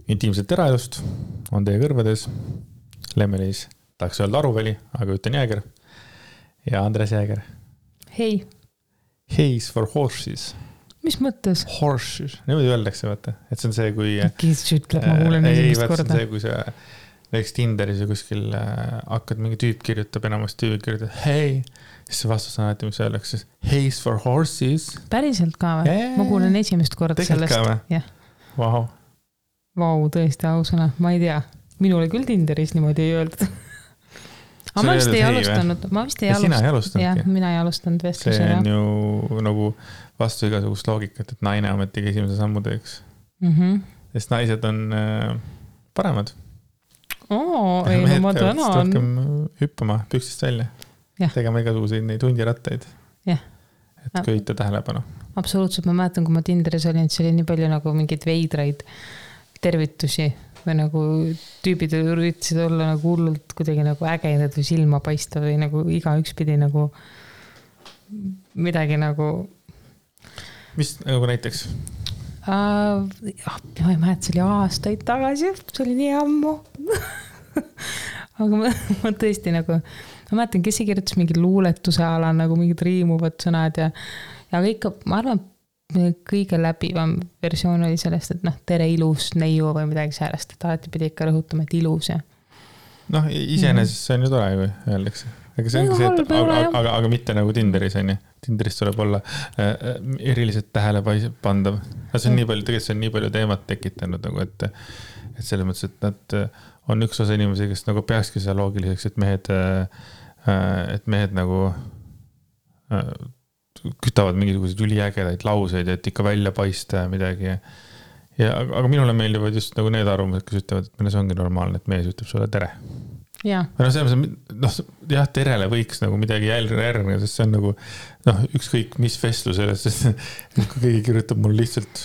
intiimset eraelust on teie kõrvades Lemmelis, tahaks öelda Aruväli, aga ütlen Jääger ja Andres Jääger. Hei. Hays for horses. Mis mõttes? Horses. Niimoodi öeldakse, vaata. Et see on see, kui... Kes ütleb, ma kuulen esimest korda. See on see, kui sa näiteks Tinderis ja kuskil hakkad mingi tüüp kirjutab, enamast tüüp kirjutab, hei, siis see vastus on alati, mis öeldakse, Hays for horses. Päriselt ka või? Ma kuulen esimest korda sellest. Tegelikult ka või? Vau. Vau, tõesti ausõna. Ma ei tea. Minule küll Tinderis niimoodi ei öeldud. Aga ma vist ei alustanud. Sina ei alustanudki? Jah, mina ei alustanud vestluse. See on ju nagu vastu igasugust loogikat, et naine ametigi esimese sammu teeks. Sest naised on paremad. Ei, no ma tänan. Rohkem hüppama püksist välja. Tegema igasuguseid neid hundirattaid. Et köita tähelepanu. Absoluutselt, ma mäletan, kui ma Tinderis olin, see oli nii palju nagu mingeid veidraid tervitusi või nagu tüübid üritasid olla nagu hullult kuidagi nagu ägedad või silma paista või nagu igaüks pidi nagu midagi nagu... Mis nagu näiteks? Ma ei mäleta, see oli aastaid tagasi, see oli nii ammu. Aga ma tõesti nagu, ma mäletan, kes ei kirjutas mingi luuletuse ala, nagu mingid riimuvad sõnad ja ikka, ma arvan, kõige läbivam versioon oli sellest, et tere ilus neiu või midagi sellest, et alati pidi ikka rõhutama, et ilus ja... Iseenesest see on ju tore, kui öeldakse. Aga see ongi see, et aga mitte nagu Tinderis on ju. Tinderis tuleb olla eriliselt tähelepandav. See on nii palju, tegelikult see on nii palju teemat tekitanud, nagu, et selles mõttes, et nad on üks osa inimesi, kes nagu peakski seda loogiliseks, et mehed nagu kütavad mingisuguseid üliägedaid lauseid, et ikka välja paista ja midagi. Aga minule meeldivad just nagu need arvamused, kes ütlevad, et meile see ongi normaalne, et mees ütleb sulle tere. Jah, terele võiks nagu midagi järgneda, sest see on nagu ükskõik mis vestlusele, sest kui keegi kirjutab mul lihtsalt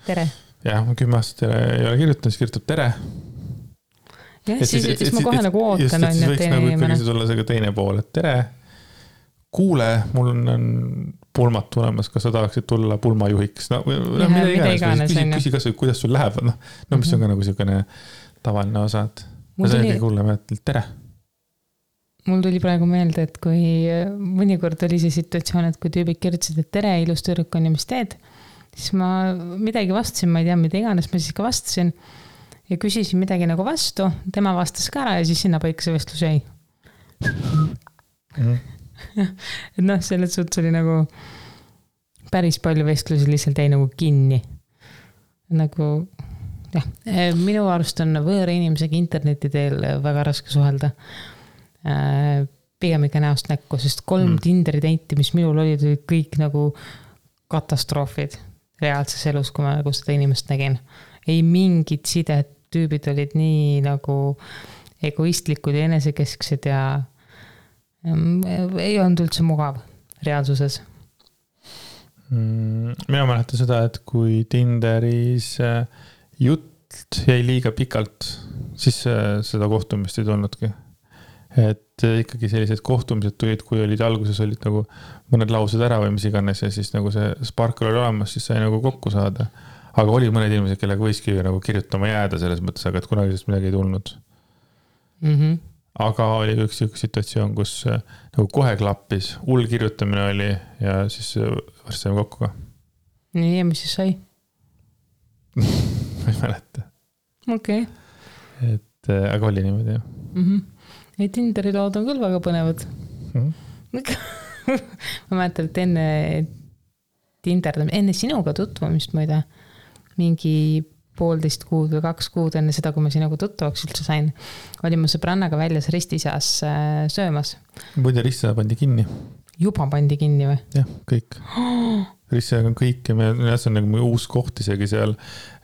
tere. Jah, ma 10 aastat ei ole kirjutanud, siis kirjutab tere. Ja, siis ma kohe nagu ootan. Just, et võiks nagu ikkagi tulla see ka teine pool, et tere. Kuule, mul on pulmat tulemas, kas sa tahaksid tulla pulmajuhiks? Mida iganes. Küsi kas või, kuidas sul läheb. Mis on ka nagu selline tavaline osa. See on ikkagi kuulema, et tere. Mul tuli praegu meelde, et kui mõnikord oli see situatsioon, et kui tüübid kirjutasid, et tere, ilus tüdruk on ja mis teed, siis ma midagi vastasin, ma ei tea, mida iganes, ma siis ka vastasin ja küsisin midagi nagu vastu, tema vastas ka ära ja siis sinna paika see vestlus jäi. Et selles suhtes oli nagu päris palju vestlusi lihtsalt jäi nagu kinni. Nagu, jah, minu arust on võõra inimesega interneti teel väga raske suhelda. Pigem ikka näost näkku, sest 3 Tinderi date'i, mis minul olid kõik nagu katastroofid reaalses elus, kui ma nagu seda inimest nägin. Ei mingid sidet, tüübid olid nii nagu egoistlikud ja enesekesksed ja ei olnud üldse mugav reaalsuses. Mina mäletan seda, et kui Tinderis jutt jäi liiga pikalt, siis seda kohtumist ei tulnudki. Et ikkagi sellised kohtumised tulid, kui olid alguses olid nagu mõned laused ära või mis iganes ja siis nagu see sparkle oli olemas, siis sai nagu kokku saada. Aga oli mõned inimesed, kellega võiski nagu kirjutama jääda selles mõttes, aga et kunagi sellest midagi ei tulnud. Aga oli üks situatsioon, kus nagu kohe klappis, hull kirjutamine oli ja siis varsti saime kokku ka. Nii, ja mis siis sai? Ma ei mäleta. Okei. Aga oli niimoodi, jah. Ja Tinderi lood on küll väga põnevad. Ma mäletan, et enne sinuga tutvumist muide, mingi 1,5 kuud või 2 kuud enne seda, kui ma sinuga tuttavaks üldse sain, olin ma sõbrannaga väljas ristiseas söömas. Muide, ristiseas pandi kinni. Juba pandi kinni või? Jah, kõik. Ristiseas on kõik ja see on nagu uus koht isegi seal,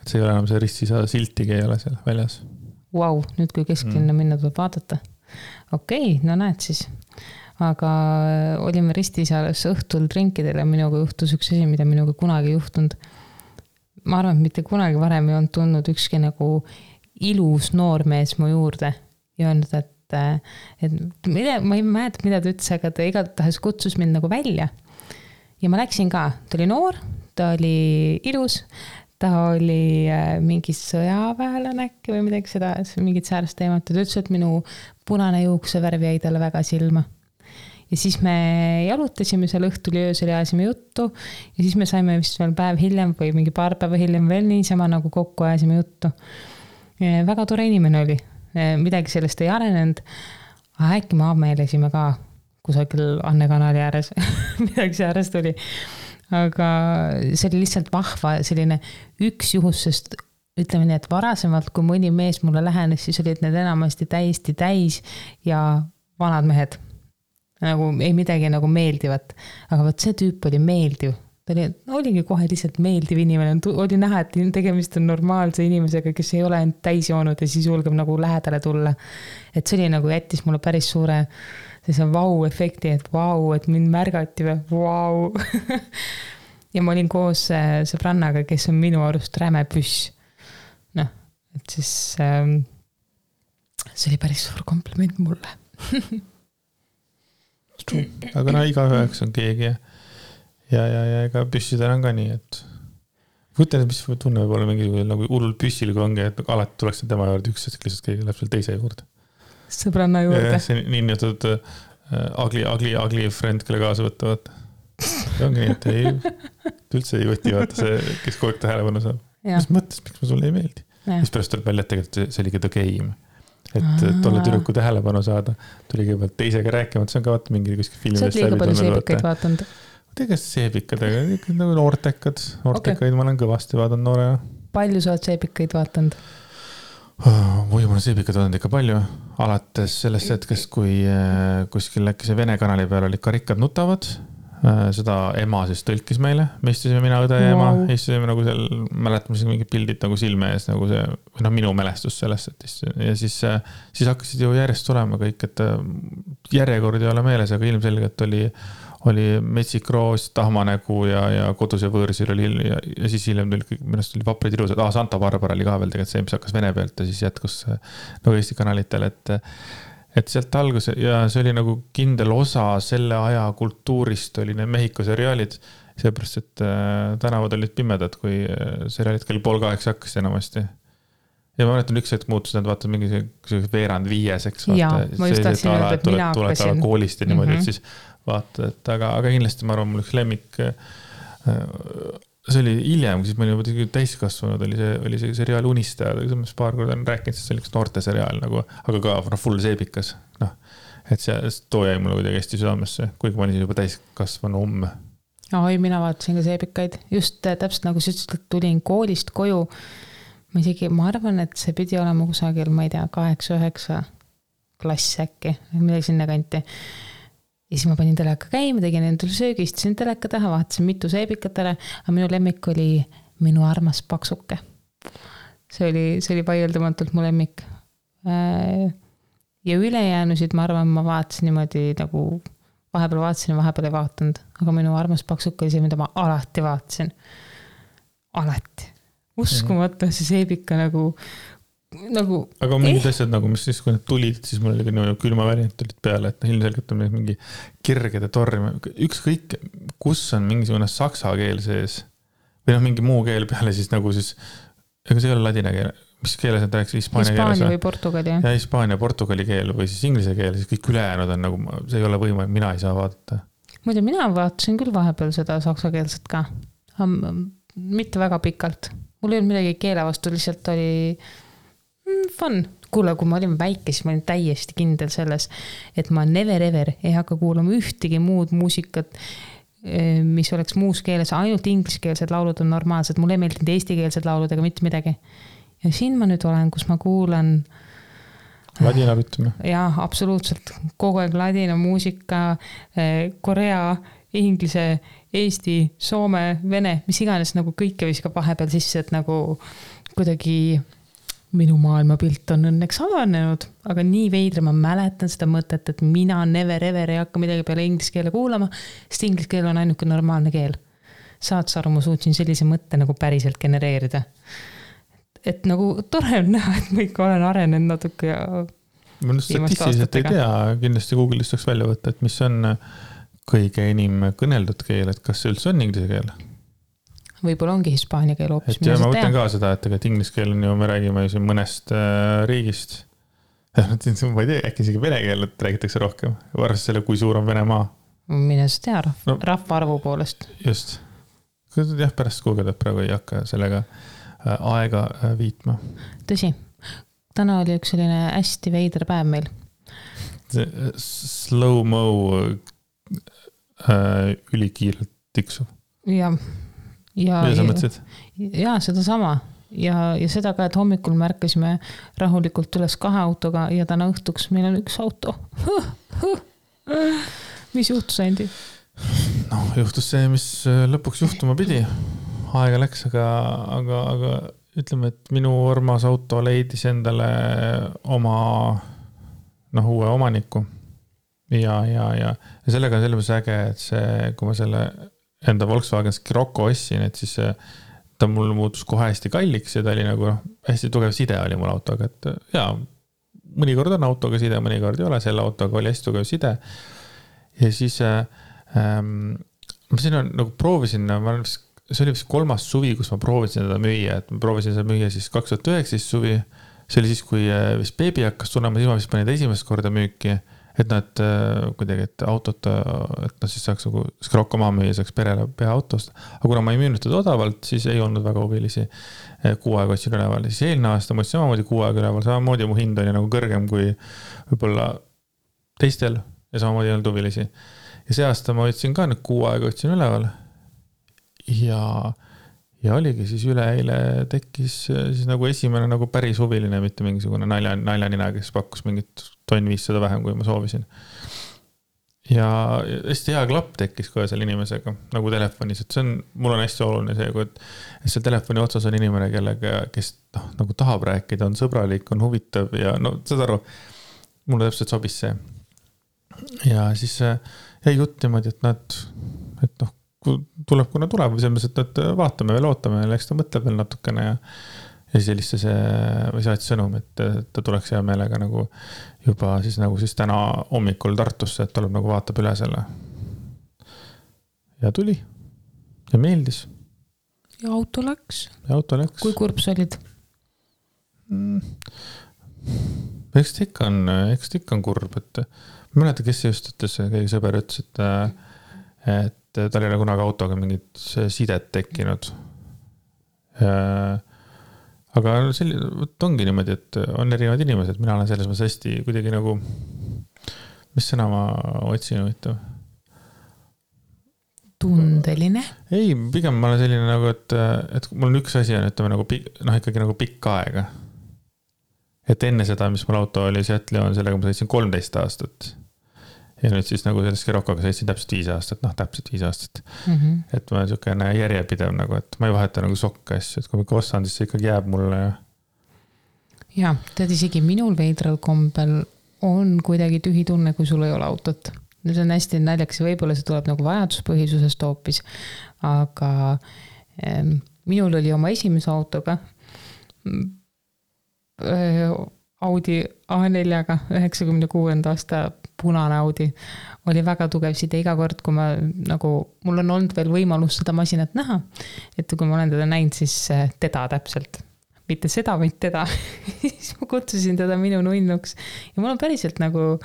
et see ei ole enam see ristiseas siltigi ei ole seal väljas. Vau, nüüd kui kesklinna minna tuleb vaadata. Okei, no näed siis. Aga olime ristiseas õhtul drinkidel ja minuga juhtus üks asi, mida minuga kunagi juhtunud. Ma arvan, et mitte kunagi varem ei olnud tulnud ükski nagu ilus noormees mu juurde ja öelnud, et ma ei mäleta, mida ta ütles, aga ta igatahes kutsus mind nagu välja. Ja ma läksin ka, ta oli noor, ta oli ilus, ta oli mingi sõjaväelane äkki või midagi seda, mingit säärest teemat. Ta ütles, et minu punane juuksevärv jäi talle väga silma. Ja siis me jalutasime seal õhtul ja öösel ja ajasime juttu ja siis me saime vist veel päev hiljem või mingi paar päeva hiljem veel niisama nagu kokku ajasime juttu. Väga tore inimene oli. Midagi sellest ei arenenud. Äkki me ameelesime ka kusagil Anne kanali ääres. Midagi säärest oli. Aga see oli lihtsalt vahva selline üks juhus, sest ütleme nii, et varasemalt, kui mõni mees mulle lähenes, siis olid need enamasti täiesti täis ja vanad mehed. Nagu ei midagi nagu meeldivat. Aga võt see tüüp oli meeldiv. Ta oligi kohe lihtsalt meeldiv inimene. Oli näha, et tegemist on normaalse inimesega, kes ei ole end täis joonud ja siis julgeb nagu lähedale tulla. Et see oli nagu jättis mulle päris suure see vau-efekti, et vau, et mind märgati või vau. Ja ma olin koos sõbrannaga, kes on minu arust räme püss. Noh, et siis see oli päris suur kompliment mulle. Aga iga üheks on keegi ja ega püssidel on ka nii, et võtlen, mis tunne võib olla mingi nagu hullul püssil, kui ongi, et alati tuleks tema juurde üks hetk lihtsalt keegi läheb seal teise juurde. Sõbranna juurde. See nii nimetud ugly friend, kelle kaasa võtta. See ongi nii, et üldse ei võti vaata see, kes kogu aeg tähelepanu saab. Mis mõttes, miks ma sulle ei meeldi? Mis pärast tuleb välja, et tegelikult see oligi the game. Et tolle tüdruku tähelepanu saada. Tuli kõigepealt teisega rääkima, see on ka vaata mingi kuskil filmidest. Sa oled liiga palju seebikaid vaatanud? Tegast seebikadega, nagu noortekaid ma olen kõvasti vaadanud noorena. Palju sa oled seebikaid vaatanud? Või ma olen seebikad vaadanud ikka palju. Alates sellest hetkest, kui kuskil äkki see Vene kanali peal olid Karikkad nutavad. Seda ema siis tõlkis meile. Me istusime mina, õde ja ema. Istusime nagu seal, mäletame mingid pildid nagu silme ees, nagu see, või minu mälestus sellest. Ja siis hakkasid ju järjest tulema kõik, et järjekord ei ole meeles, aga ilmselgelt oli Metsik Roos, Tahmanägu ja Kodus ja võõrsil oli ja siis hiljem tuli Vaprid ilusad. Santa Barbara oli ka veel tegelikult see, mis hakkas Vene pealt ja siis jätkus nagu Eesti kanalitel, et sealt algus ja see oli nagu kindel osa selle aja kultuurist oli need Mehhiko seriaalid, seepärast, et tänavad olid pimedad, kui seriaalid kell 7:30 hakkas enamasti. Ja ma mäletan, üks hetk muutus, nad vaatad mingi veerand 5, eks vaata. Ja, ma just tahtsin öelda, et mina hakkasin. Koolist ja niimoodi, et siis vaata, et aga kindlasti ma arvan, mul üks lemmik, see oli hiljem, siis ma olin täiskasvanud, oli see seriaal Unistajad, aga see paar korda on rääkinud, see oli üks noorte seriaal, nagu, aga ka full seebikas. No, et see too jäi mulle kuidagi hästi südamesse, kuigi ma olin juba täiskasvanu Oi, mina vaatasin ka seebikaid. Just täpselt nagu sa ütlesid, et tulin koolist koju. Ma arvan, et see pidi olema kusagil, ma ei tea, 8-9 klass äkki, midagi sinna kanti. Ja siis ma panin teleka käima, tegin endale söögi, istusin teleka taha, vaatasin mitu seebikatele, aga minu lemmik oli Minu armas paksuke. See oli vaieldamatult mu lemmik. Ja ülejäänusid, ma arvan, ma vaatasin niimoodi nagu vahepeal vaatasin ja vahepeal ei vaatanud, aga Minu armas paksuke oli see, mida ma alati vaatasin. Alati. Uskumata see seebika nagu aga mingid asjad nagu, mis siis, kui need tulid, siis mul oli ka külmavärinad tulid peale, et ilmselgelt on mingi kirgede torm. Ükskõik, kus on mingisugune saksa keel sees või mingi muu keel peale, siis nagu siis, ega see ei ole ladina keel, mis keeles on rääks Hispaania või Portugali. Ja Hispaania, Portugali keel või siis inglise keel, siis kõik ülejäänud on nagu, see ei ole võimalik, mina ei saa vaadata. Muide, mina vaatasin küll vahepeal seda saksa keelset ka, mitte väga pikalt. Mul ei olnud midagi keele vastu, lihtsalt oli fun. Kuule, kui ma olin väike, siis ma olin täiesti kindel selles, et ma never ever ei hakka kuulama ühtegi muud muusikat, mis oleks muus keeles, ainult ingliskeelsed laulud on normaalsed, mulle ei meeldinud eestikeelsed laulud ega mitte midagi. Ja siin ma nüüd olen, kus ma kuulan ladina rütmi. Jaa, absoluutselt. Kogu aeg ladina muusika, korea, inglise, eesti, soome, vene, mis iganes nagu kõike viskab vahepeal sisse, et nagu kuidagi minu maailmapilt on õnneks avanenud, aga nii veidre ma mäletan seda mõtet, et mina never ever ei hakka midagi peale inglise keele kuulama, sest inglise keel on ainuke normaalne keel. Saad sa aru, ma suutsin sellise mõtte nagu päriselt genereerida. Et nagu tore on näha, et ma ikka olen arenenud natuke ja ma statistiliselt ei tea, kindlasti Google'ist saaks välja võtta, et mis on kõige enim kõneldud keel, et kas see üldse on inglise keel? võib-olla ongi hispaania keel hoopis. et ja ma mõtlen ka seda, et tegelikult inglise keel on ju, me räägime ju siin mõnest riigist. Ma ei tea, äkki isegi vene keelt räägitakse rohkem. Arvestades selle, kui suur on Venemaa. Mine sa tea rahvaarvu poolest. Just. Jah, pärast kuugeldab praegu ei hakka sellega aega viitma. Tõsi. Täna oli üks selline hästi veider päev meil. Slow-mo ülikiirelt tiksuv. Ja sa mõtlesid? Ja seda sama. Ja seda ka, et hommikul märkasime rahulikult üles 2 autoga ja täna õhtuks meil on 1 auto. Mis juhtus, Andi? No, juhtus see, mis lõpuks juhtuma pidi. Aega läks, aga ütleme, et minu armas auto leidis endale oma uue omaniku. Ja sellega on selles äge, et see, kui ma selle enda Volkswagen Scirocco ostsin, et siis ta mul muutus kohe hästi kalliks ja ta oli nagu hästi tugev side oli mul autoga, et jaa, mõnikord on autoga side, mõnikord ei ole, selle autoga oli hästi tugev side. Ja siis ma siin nagu proovisin, see oli vist 3. suvi, kus ma proovisin seda müüa, et ma proovisin seda müüa siis 2019 suvi. See oli siis, kui vist beebi hakkas tulema, siis ma vist panin esimest korda müüki, et nad kuidagi, et autot, et nad siis saaks nagu Scirocco maha müüa, saaks perele pea autost. Aga kuna ma ei müünud teda odavalt, siis ei olnud väga huvilisi 6 aega otsin üleval. Siis eelne aasta ma otsin samamoodi 6 aega üleval, samamoodi mu hind oli nagu kõrgem kui võib-olla teistel ja samamoodi ei olnud huvilisi. Ja see aasta ma otsin ka nüüd 6 aega otsin üleval. Ja oligi siis üleeile tekkis siis nagu esimene nagu päris huviline, mitte mingisugune naljanina, kes pakkus mingit 1500 vähem, kui ma soovisin. Ja hästi hea klapp tekkis ka selle inimesega, nagu telefonis, et mul on hästi oluline see, et seal telefoni otsas on inimene, kellega, kes nagu tahab rääkida, on sõbralik, on huvitav ja saad aru, mulle täpselt sobis see. Ja siis jäi jutt niimoodi, et tuleb, kuna tuleb, või selles mõttes, et vaatame veel, ootame, eks ta mõtleb veel natukene ja siis helistas või saatis sõnum, et ta tuleks hea meelega nagu juba siis täna hommikul Tartusse, et tuleb nagu vaatab üle selle. Ja tuli ja meeldis. Ja auto läks. Kui kurb sa olid? Eks ta ikka on kurb, et ma mäleta, kes just ütles, keegi sõber ütles, et tal ei ole kunagi autoga mingit sidet tekkinud. Aga ongi niimoodi, et on erinevad inimesed, mina olen selles mõttes hästi kuidagi nagu, mis sõna ma otsin huvitav? Tundeline? Ei, pigem ma olen selline nagu, et mul on üks asi on, ütleme nagu ikkagi nagu pikk aega. Et enne seda, mis mul auto oli Seattle on, sellega ma sõitsin 13 aastat. Ja nüüd siis nagu sellest Sciroccoga sõitsin täpselt 5 aastat, täpselt 5 aastat. Et ma olen järjepidev nagu, et ma ei vaheta nagu sokka asju, et kui ma ostan, siis see ikkagi jääb mulle. Ja, tead isegi minul veidral kombel on kuidagi tühi tunne, kui sul ei ole autot. See on hästi naljakas ja võib-olla see tuleb nagu vajaduspõhisusest hoopis, aga minul oli oma esimese autoga Audi A4-ga 96. aasta punane Audi oli väga tugev side iga kord, kui ma nagu, mul on olnud veel võimalus seda masinat näha, et kui ma olen teda näinud, siis teda täpselt, mitte seda, vaid teda, siis ma kutsusin teda minu nunnuks ja mul on päriselt nagu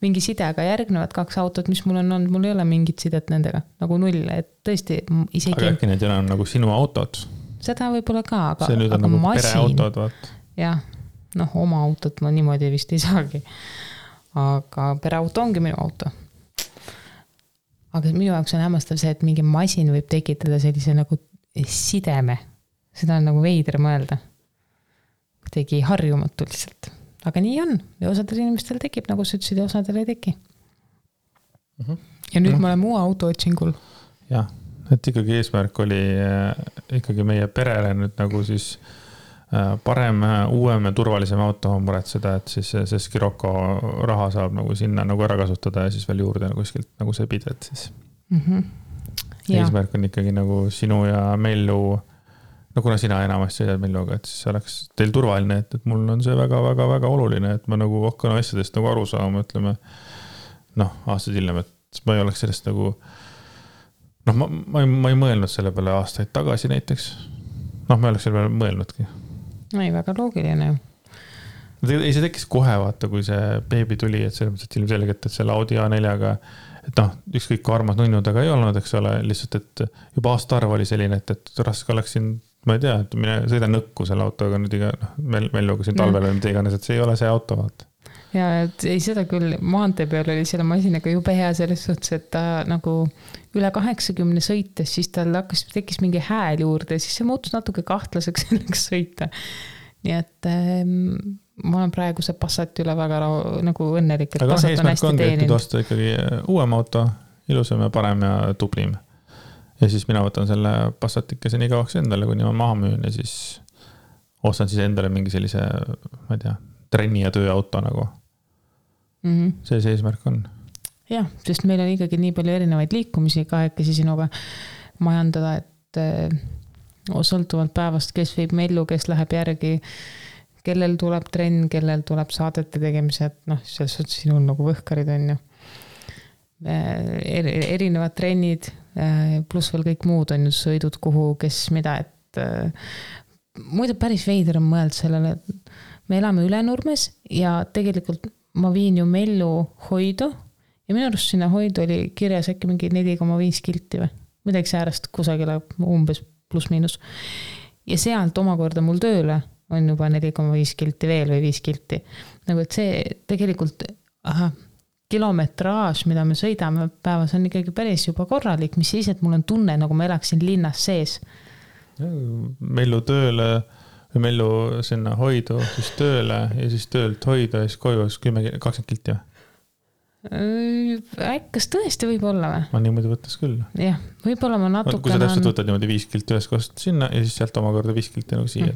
mingi side, aga järgnevad 2 autot, mis mul on olnud, mul ei ole mingit sidet nendega, nagu 0, et tõesti isegi... Aga äkki need on nagu sinu autod? Seda võib-olla ka, aga see nüüd on nagu pereautod, vaat. Jah, oma autot ma niimoodi vist ei saagi. Aga pereauto ongi minu auto. Aga minu jaoks on hämmastav see, et mingi masin võib tekitada sellise nagu sideme. Seda on nagu veider mõelda. Tegi harjumatu lihtsalt. Aga nii on. Ja osadel inimestel tekib, nagu sa ütlesid, ja osadel ei teki. Ja nüüd ma olen muu auto otsingul. Jah, et ikkagi eesmärk oli ikkagi meie perele nüüd nagu siis parem, uuem ja turvalisem auto on muretseda, et siis see Scirocco raha saab nagu sinna nagu ära kasutada ja siis veel juurde nagu kuskilt nagu see pide, et siis eesmärk on ikkagi nagu sinu ja Mellu, no kuna sina enamasti sõidad Melluga, et siis oleks teil turvaline, et mul on see väga oluline, et ma nagu hakkan asjadest nagu aru saama, ütleme, aastad hiljem, et ma ei oleks sellest nagu noh, ma ei mõelnud selle peale aastaid tagasi näiteks. Noh, ma oleks selle peale mõelnudki. Ei, väga loogiline ju. Ei, see tekkis kohe, vaata, kui see beebi tuli, et selles mõttes, et ilmselgelt, et selle Audi A4-ga, et noh, ükskõik kui armas nunnu taga ei olnud, eks ole, lihtsalt, et juba aastaarv oli selline, et raske oleks siin, ma ei tea, et mine sõida nõkku selle autoga nüüd iga, meil lugusin talvel või mida iganes, et see ei ole see auto, vaata. Ja, et ei seda küll, maantee peal oli selle masinaga jube hea selles suhtes, et ta nagu üle 80 sõites, siis tal tekkis mingi hääl juurde ja siis see muutus natuke kahtlaseks selleks sõita. Nii et ma olen praegu see Passati üle väga nagu õnnelik, et Passat on hästi teeninud. Aga osta ikkagi uuem auto, ilusam ja parem ja tublim. Ja siis mina võtan selle Passatikese nii kauaks endale, kuni ma maha müün ja siis ostan siis endale mingi sellise, ma ei tea, trenni ja tööauto nagu. See eesmärk on. Jah, sest meil on ikkagi nii palju erinevaid liikumisi kahekesi sinuga majandada, et sõltuvalt päevast, kes viib mellu, kes läheb järgi, kellel tuleb trenn, kellel tuleb saadete tegemised, noh, selles suhtes sinul nagu võhkarid on ju. Erinevad trennid, pluss veel kõik muud on ju sõidud kuhu, kes mida, et muide päris veider on mõeld sellele, et me elame Ülenurmes ja tegelikult ma viin ju Mellu hoidu ja minu arust sinna hoidu oli kirjas äkki mingi 4,5 kilti või midagi säärast kusagile umbes pluss miinus. Ja sealt omakorda mul tööle on juba 4,5 kilti veel või 5 kilti. Nagu et see tegelikult kilometraaž, mida me sõidame päevas on ikkagi päris juba korralik, mis siis, et mul on tunne, nagu ma elaksin linnas sees. Mellu tööle või Mellu sinna hoidu, siis tööle ja siis töölt hoida ja siis koju 20 kilti. Kas tõesti võib olla või? Ma niimoodi võttes küll. Jah, võib-olla ma natukene... Kui sa täpselt võtad niimoodi 5 kilti ühes kohast sinna ja siis sealt omakorda 5 kilti nagu siia.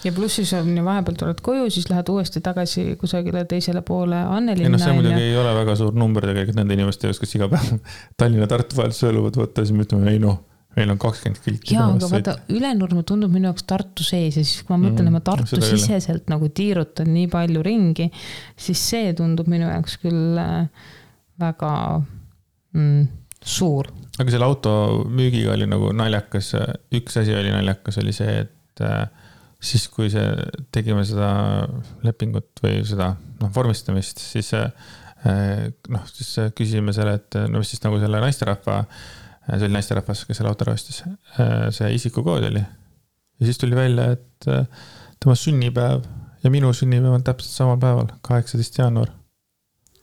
Ja pluss siis on vahepeal tuled koju, siis lähed uuesti tagasi kusagile teisele poole Annelinna. See muidugi ei ole väga suur number tegelikult nende inimeste jaoks, kes iga päev Tallinna-Tartu vahel sõeluvad võtta, siis me ütleme, ei noh, meil on 20 kilti. Jaa, aga vaata, Ülenurme tundub minu jaoks Tartu sees ja siis kui ma mõtlen, et ma Tartu siseselt nagu tiirutan nii palju ringi, siis see tundub minu jaoks küll väga suur. Aga selle auto müügiga oli nagu naljakas, üks asi oli naljakas, oli see, et siis kui tegime seda lepingut või seda vormistamist, siis küsisime selle, et mis siis nagu selle naisterahva see oli naisterahvas, kes selle auto rastis. See isikukood oli. Ja siis tuli välja, et tema sünnipäev ja minu sünnipäev on täpselt samal päeval, 18. jaanuar.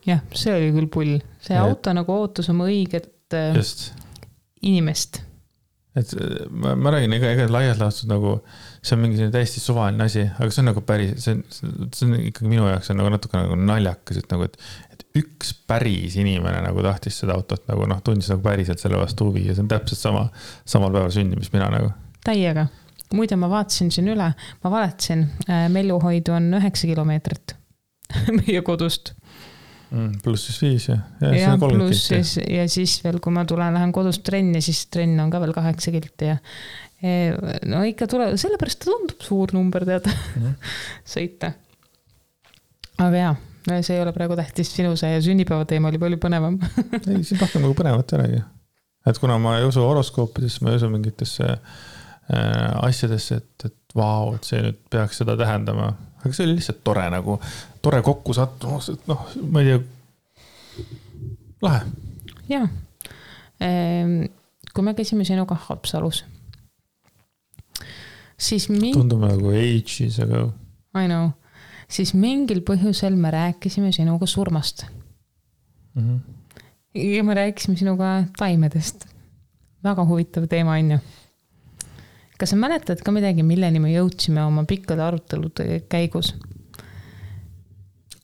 Jah, see oli küll pull. See auto nagu ootus oma õiget inimest. Et ma räägin, ega laias laastus nagu, see on mingi täiesti suvaline asi, aga see on nagu päris, see on ikkagi minu jaoks on nagu natuke nagu naljakas, et nagu, et üks päris inimene nagu tahtis seda autot nagu tundis nagu päriselt selle vastu huvi ja see on täpselt samal päeval sündi, mis mina nagu. Täiega. Muide, ma vaatasin siin üle, ma vaatasin, Melluhoidu on 9 kilomeetrit meie kodust. Pluss siis 5 ja pluss siis, ja siis veel, kui ma lähen kodust trenni, siis trenn on ka veel 8 kilti ja no ikka sellepärast ta tundub suur number teada sõita. Aga jaa, see ei ole praegu tähtis sinu see sünnipäeva teema oli palju põnevam. Ei, siin rohkem nagu põnevat ei olegi. Et kuna ma ei usu horoskoopidesse, ma ei usu mingitesse asjadesse, et vau, et see nüüd peaks seda tähendama. Aga see oli lihtsalt tore nagu, tore kokku sattumus, et ma ei tea, lahe. Jaa. Kui me käisime sinuga Haapsalus, siis tundub nagu ages ago. I know. Siis mingil põhjusel me rääkisime sinuga surmast. Ja me rääkisime sinuga taimedest. Väga huvitav teema on ju. Kas sa mäletad ka midagi, milleni me jõudsime oma pikkade arutelude käigus?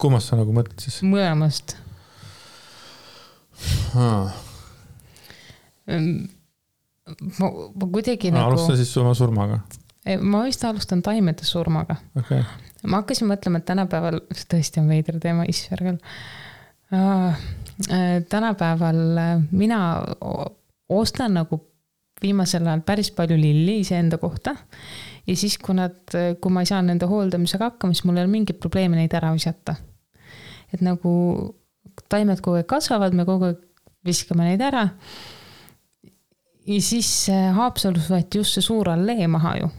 Kummast sa nagu mõtled siis? Mõlemast. Ma kuidagi nagu... Alusta siis oma surmaga. Ma vist alustan taimede surmaga. Okay. Ma hakkasin mõtlema, et tänapäeval, see tõesti on veider teema, issvergal. Tänapäeval mina ostan nagu viimasel ajal päris palju lilli iseenda kohta ja siis, kui ma ei saa nende hooldamisega hakkama, siis mul ei ole mingit probleemi neid ära visata. Et nagu kui taimed kogu aeg kasvavad, me kogu aeg viskame neid ära ja siis Haapsalus võeti just see suur allee maha ju.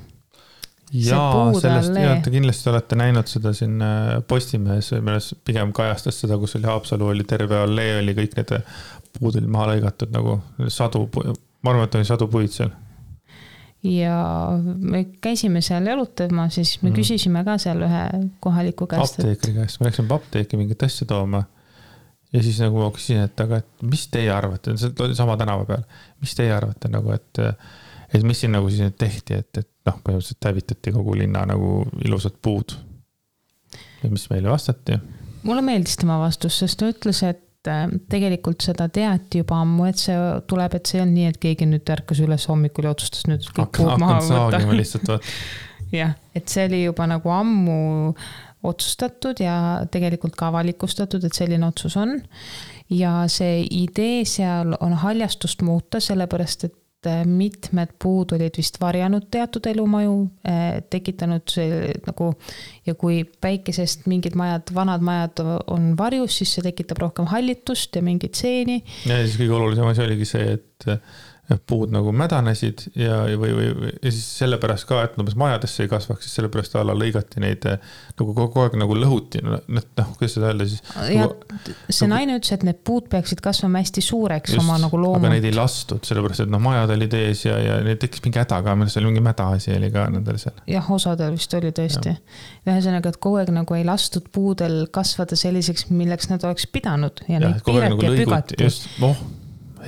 Jaa, sellest te kindlasti olete näinud seda siin Postimehes, milles pigem kajastas seda, kus oli Haapsalu, oli terve allee, oli kõik need puud oli maha lõigatud nagu sadu, ma arvan, et oli sadu puid seal. Ja me käisime seal jalutama, siis me küsisime ka seal ühe kohaliku käest. Apteekri käest, me läksime apteeki mingit asja tooma ja siis nagu ma küsisin, et aga et mis teie arvate, see oli sama tänava peal, mis teie arvate nagu, et mis siin nagu siis tehti, et noh, põhimõtteliselt hävitati kogu linna nagu ilusad puud. Ja mis meile vastati? Mulle meeldis tema vastus, sest ta ütles, et tegelikult seda teati juba ammu, et see tuleb, et see on nii, et keegi nüüd ärkas üles hommikul ja otsustas nüüd kõik puud maha võtta. Jah, et see oli juba nagu ammu otsustatud ja tegelikult ka avalikustatud, et selline otsus on. Ja see idee seal on haljastust muuta, sellepärast, et mitmed puud olid vist varjanud teatud elumaju, tekitanud see nagu, ja kui päikesest mingid majad, vanad majad on varjus, siis see tekitab rohkem hallitust ja mingit seeni. Ja siis kõige olulisem asi oligi see, et puud nagu mädanesid ja siis sellepärast ka, et majadesse ei kasvaks, siis sellepärast alla lõigati neid nagu kogu aeg nagu lõhuti, kuidas seda öelda siis? Ja see naine ütles, et need puud peaksid kasvama hästi suureks just, oma nagu loomult. Aga neid ei lastud, sellepärast, et majad olid ees ja neid tekkis mingi häda ka, millest oli mingi mäda asi oli ka nendel seal. Jah, osadel vist oli tõesti. Ühesõnaga, et kogu aeg nagu ei lastud puudel kasvada selliseks, milleks nad oleks pidanud ja neid piirati ja pügati. Just,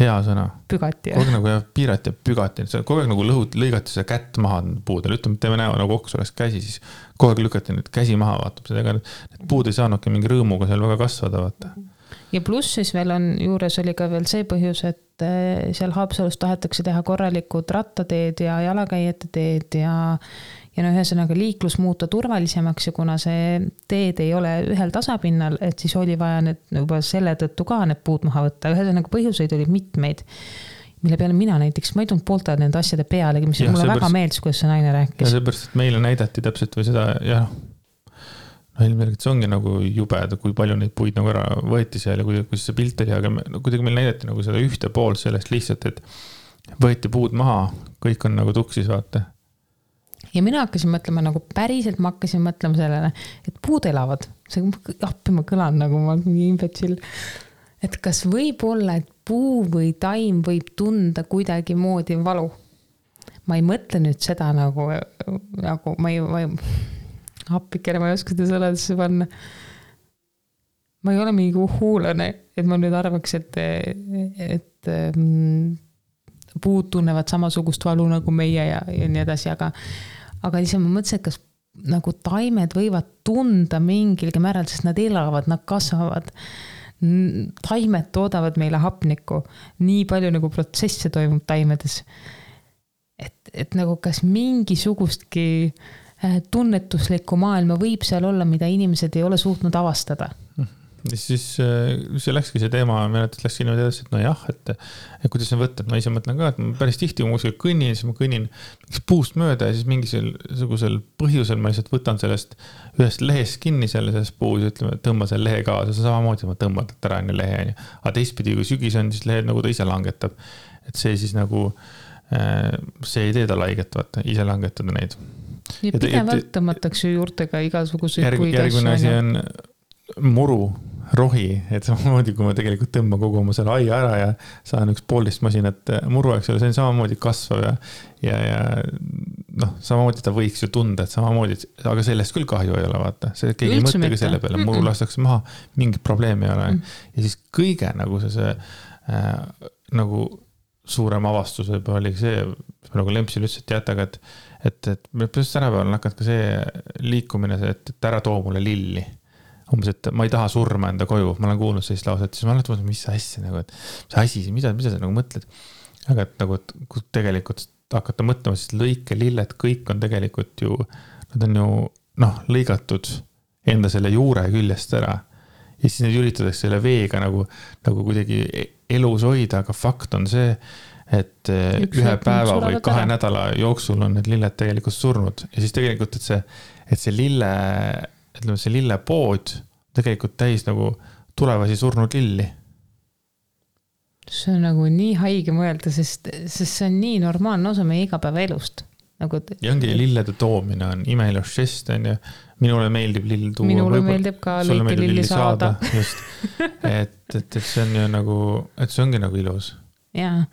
hea sõna. Pügati, kogu aeg nagu piirati ja pügati. Kogu aeg nagu lõigati seda kätt maha puudel. Ütleme, et teeme näo nagu oks oleks käsi, siis kogu aeg lükati nüüd käsi maha, vaatab seda. Need puud ei saanudki mingi rõõmuga seal väga kasvada, vaata. Ja pluss siis veel on, juures oli ka veel see põhjus, et seal Haapsalus tahetakse teha korralikud rattateed ja jalakäijate teed ja ühesõnaga liiklus muuta turvalisemaks ja kuna see teed ei ole ühel tasapinnal, et siis oli vaja need juba selle tõttu ka need puud maha võtta. Ühesõnaga põhjuseid oli mitmeid, mille peale mina näiteks, ma ei tulnud poolte nende asjade pealegi, mis mulle väga meeldis, kuidas see naine rääkis. Ja seepärast, et meile näidati täpselt või seda, ja ilmselt see ongi nagu jubed, kui palju neid puid nagu ära võeti seal ja kui see pilt oli, aga kuidagi meil näidati nagu seda ühte pool sellest lihtsalt, et võeti puud maha, kõik on nagu tuksis, vaata. Ja mina hakkasin mõtlema nagu päriselt, ma hakkasin mõtlema sellele, et puud elavad. See appi ma kõlan nagu ma imbetsill. Et kas võib olla, et puu või taim võib tunda kuidagi moodi valu? Ma ei mõtle nüüd seda nagu ma ei appikene, ma ei oska seda sõnadesse panna. Ma ei ole mingi huulane, et ma nüüd arvaks, et puud tunnevad samasugust valu nagu meie ja nii edasi, aga lihtsalt ma mõtlesin, et kas nagu taimed võivad tunda mingilgi määral, sest nad elavad, nad kasvavad. Taimed toodavad meile hapnikku. Nii palju nagu protsesse toimub taimedes. Et nagu kas mingisugustki tunnetuslikku maailma võib seal olla, mida inimesed ei ole suutnud avastada. Siis see läkski see teema, läkski niimoodi edasi, et no jah, et kuidas see võtta, et ma ise mõtlen ka, et ma päris tihti, kui ma kuskil kõnnin, siis ma kõnnin puust mööda ja siis mingisugusel põhjusel ma lihtsalt võtan sellest ühest lehest kinni sellest puus ja ütleme, tõmba selle lehe kaasa, see samamoodi ma tõmban ära enne lehe. Aga teistpidi, kui sügis on, siis lehed nagu ta ise langetab. Et see siis nagu, see ei tee ta laiget, vaata, ise langetada neid. Ja pidevalt tõmmatakse juurtega igasuguseid puid asju. Järgmine asi on muru, rohi, et samamoodi, kui ma tegelikult tõmban kogu oma selle aia ära ja saan üks poolist masinat muru, eks ole, see on samamoodi kasvav ja samamoodi ta võiks ju tunda, et samamoodi, aga sellest küll kahju ei ole, vaata. See keegi ei mõttegi selle peale, muru lastakse maha, mingit probleemi ei ole. Ja siis kõige nagu see nagu suurem avastus võib oli see, nagu Lempsil ütles, et jätaga, et me põhjust tänapäeval hakkad ka see liikumine, et ära too mulle lilli. Umbes, et ma ei taha surma enda koju, ma olen kuulnud sellist lauset, siis ma olen mõtlenud, mis asja, nagu, et mis asi, mida sa nagu mõtled. Aga et nagu, et kui tegelikult hakata mõtlema, siis lõike lilled, kõik on tegelikult ju, nad on ju lõigatud enda selle juure küljest ära. Ja siis need üritatakse selle veega nagu kuidagi elus hoida, aga fakt on see, et ühe päeva või 2 nädala jooksul on need lilled tegelikult surnud. Ja siis tegelikult, et see lillepood tegelikult täis nagu tulevasi surnud lilli. see on nagu nii haige mõelda, sest see on nii normaalne osa meie igapäevaelust. Nagu, ja ongi lillede toomine on imeilus žest, on ju. Minule meeldib lill tuua. Minule meeldib ka lõike lilli saada. Just. Et see on ju nagu, et see ongi nagu ilus. Jaa,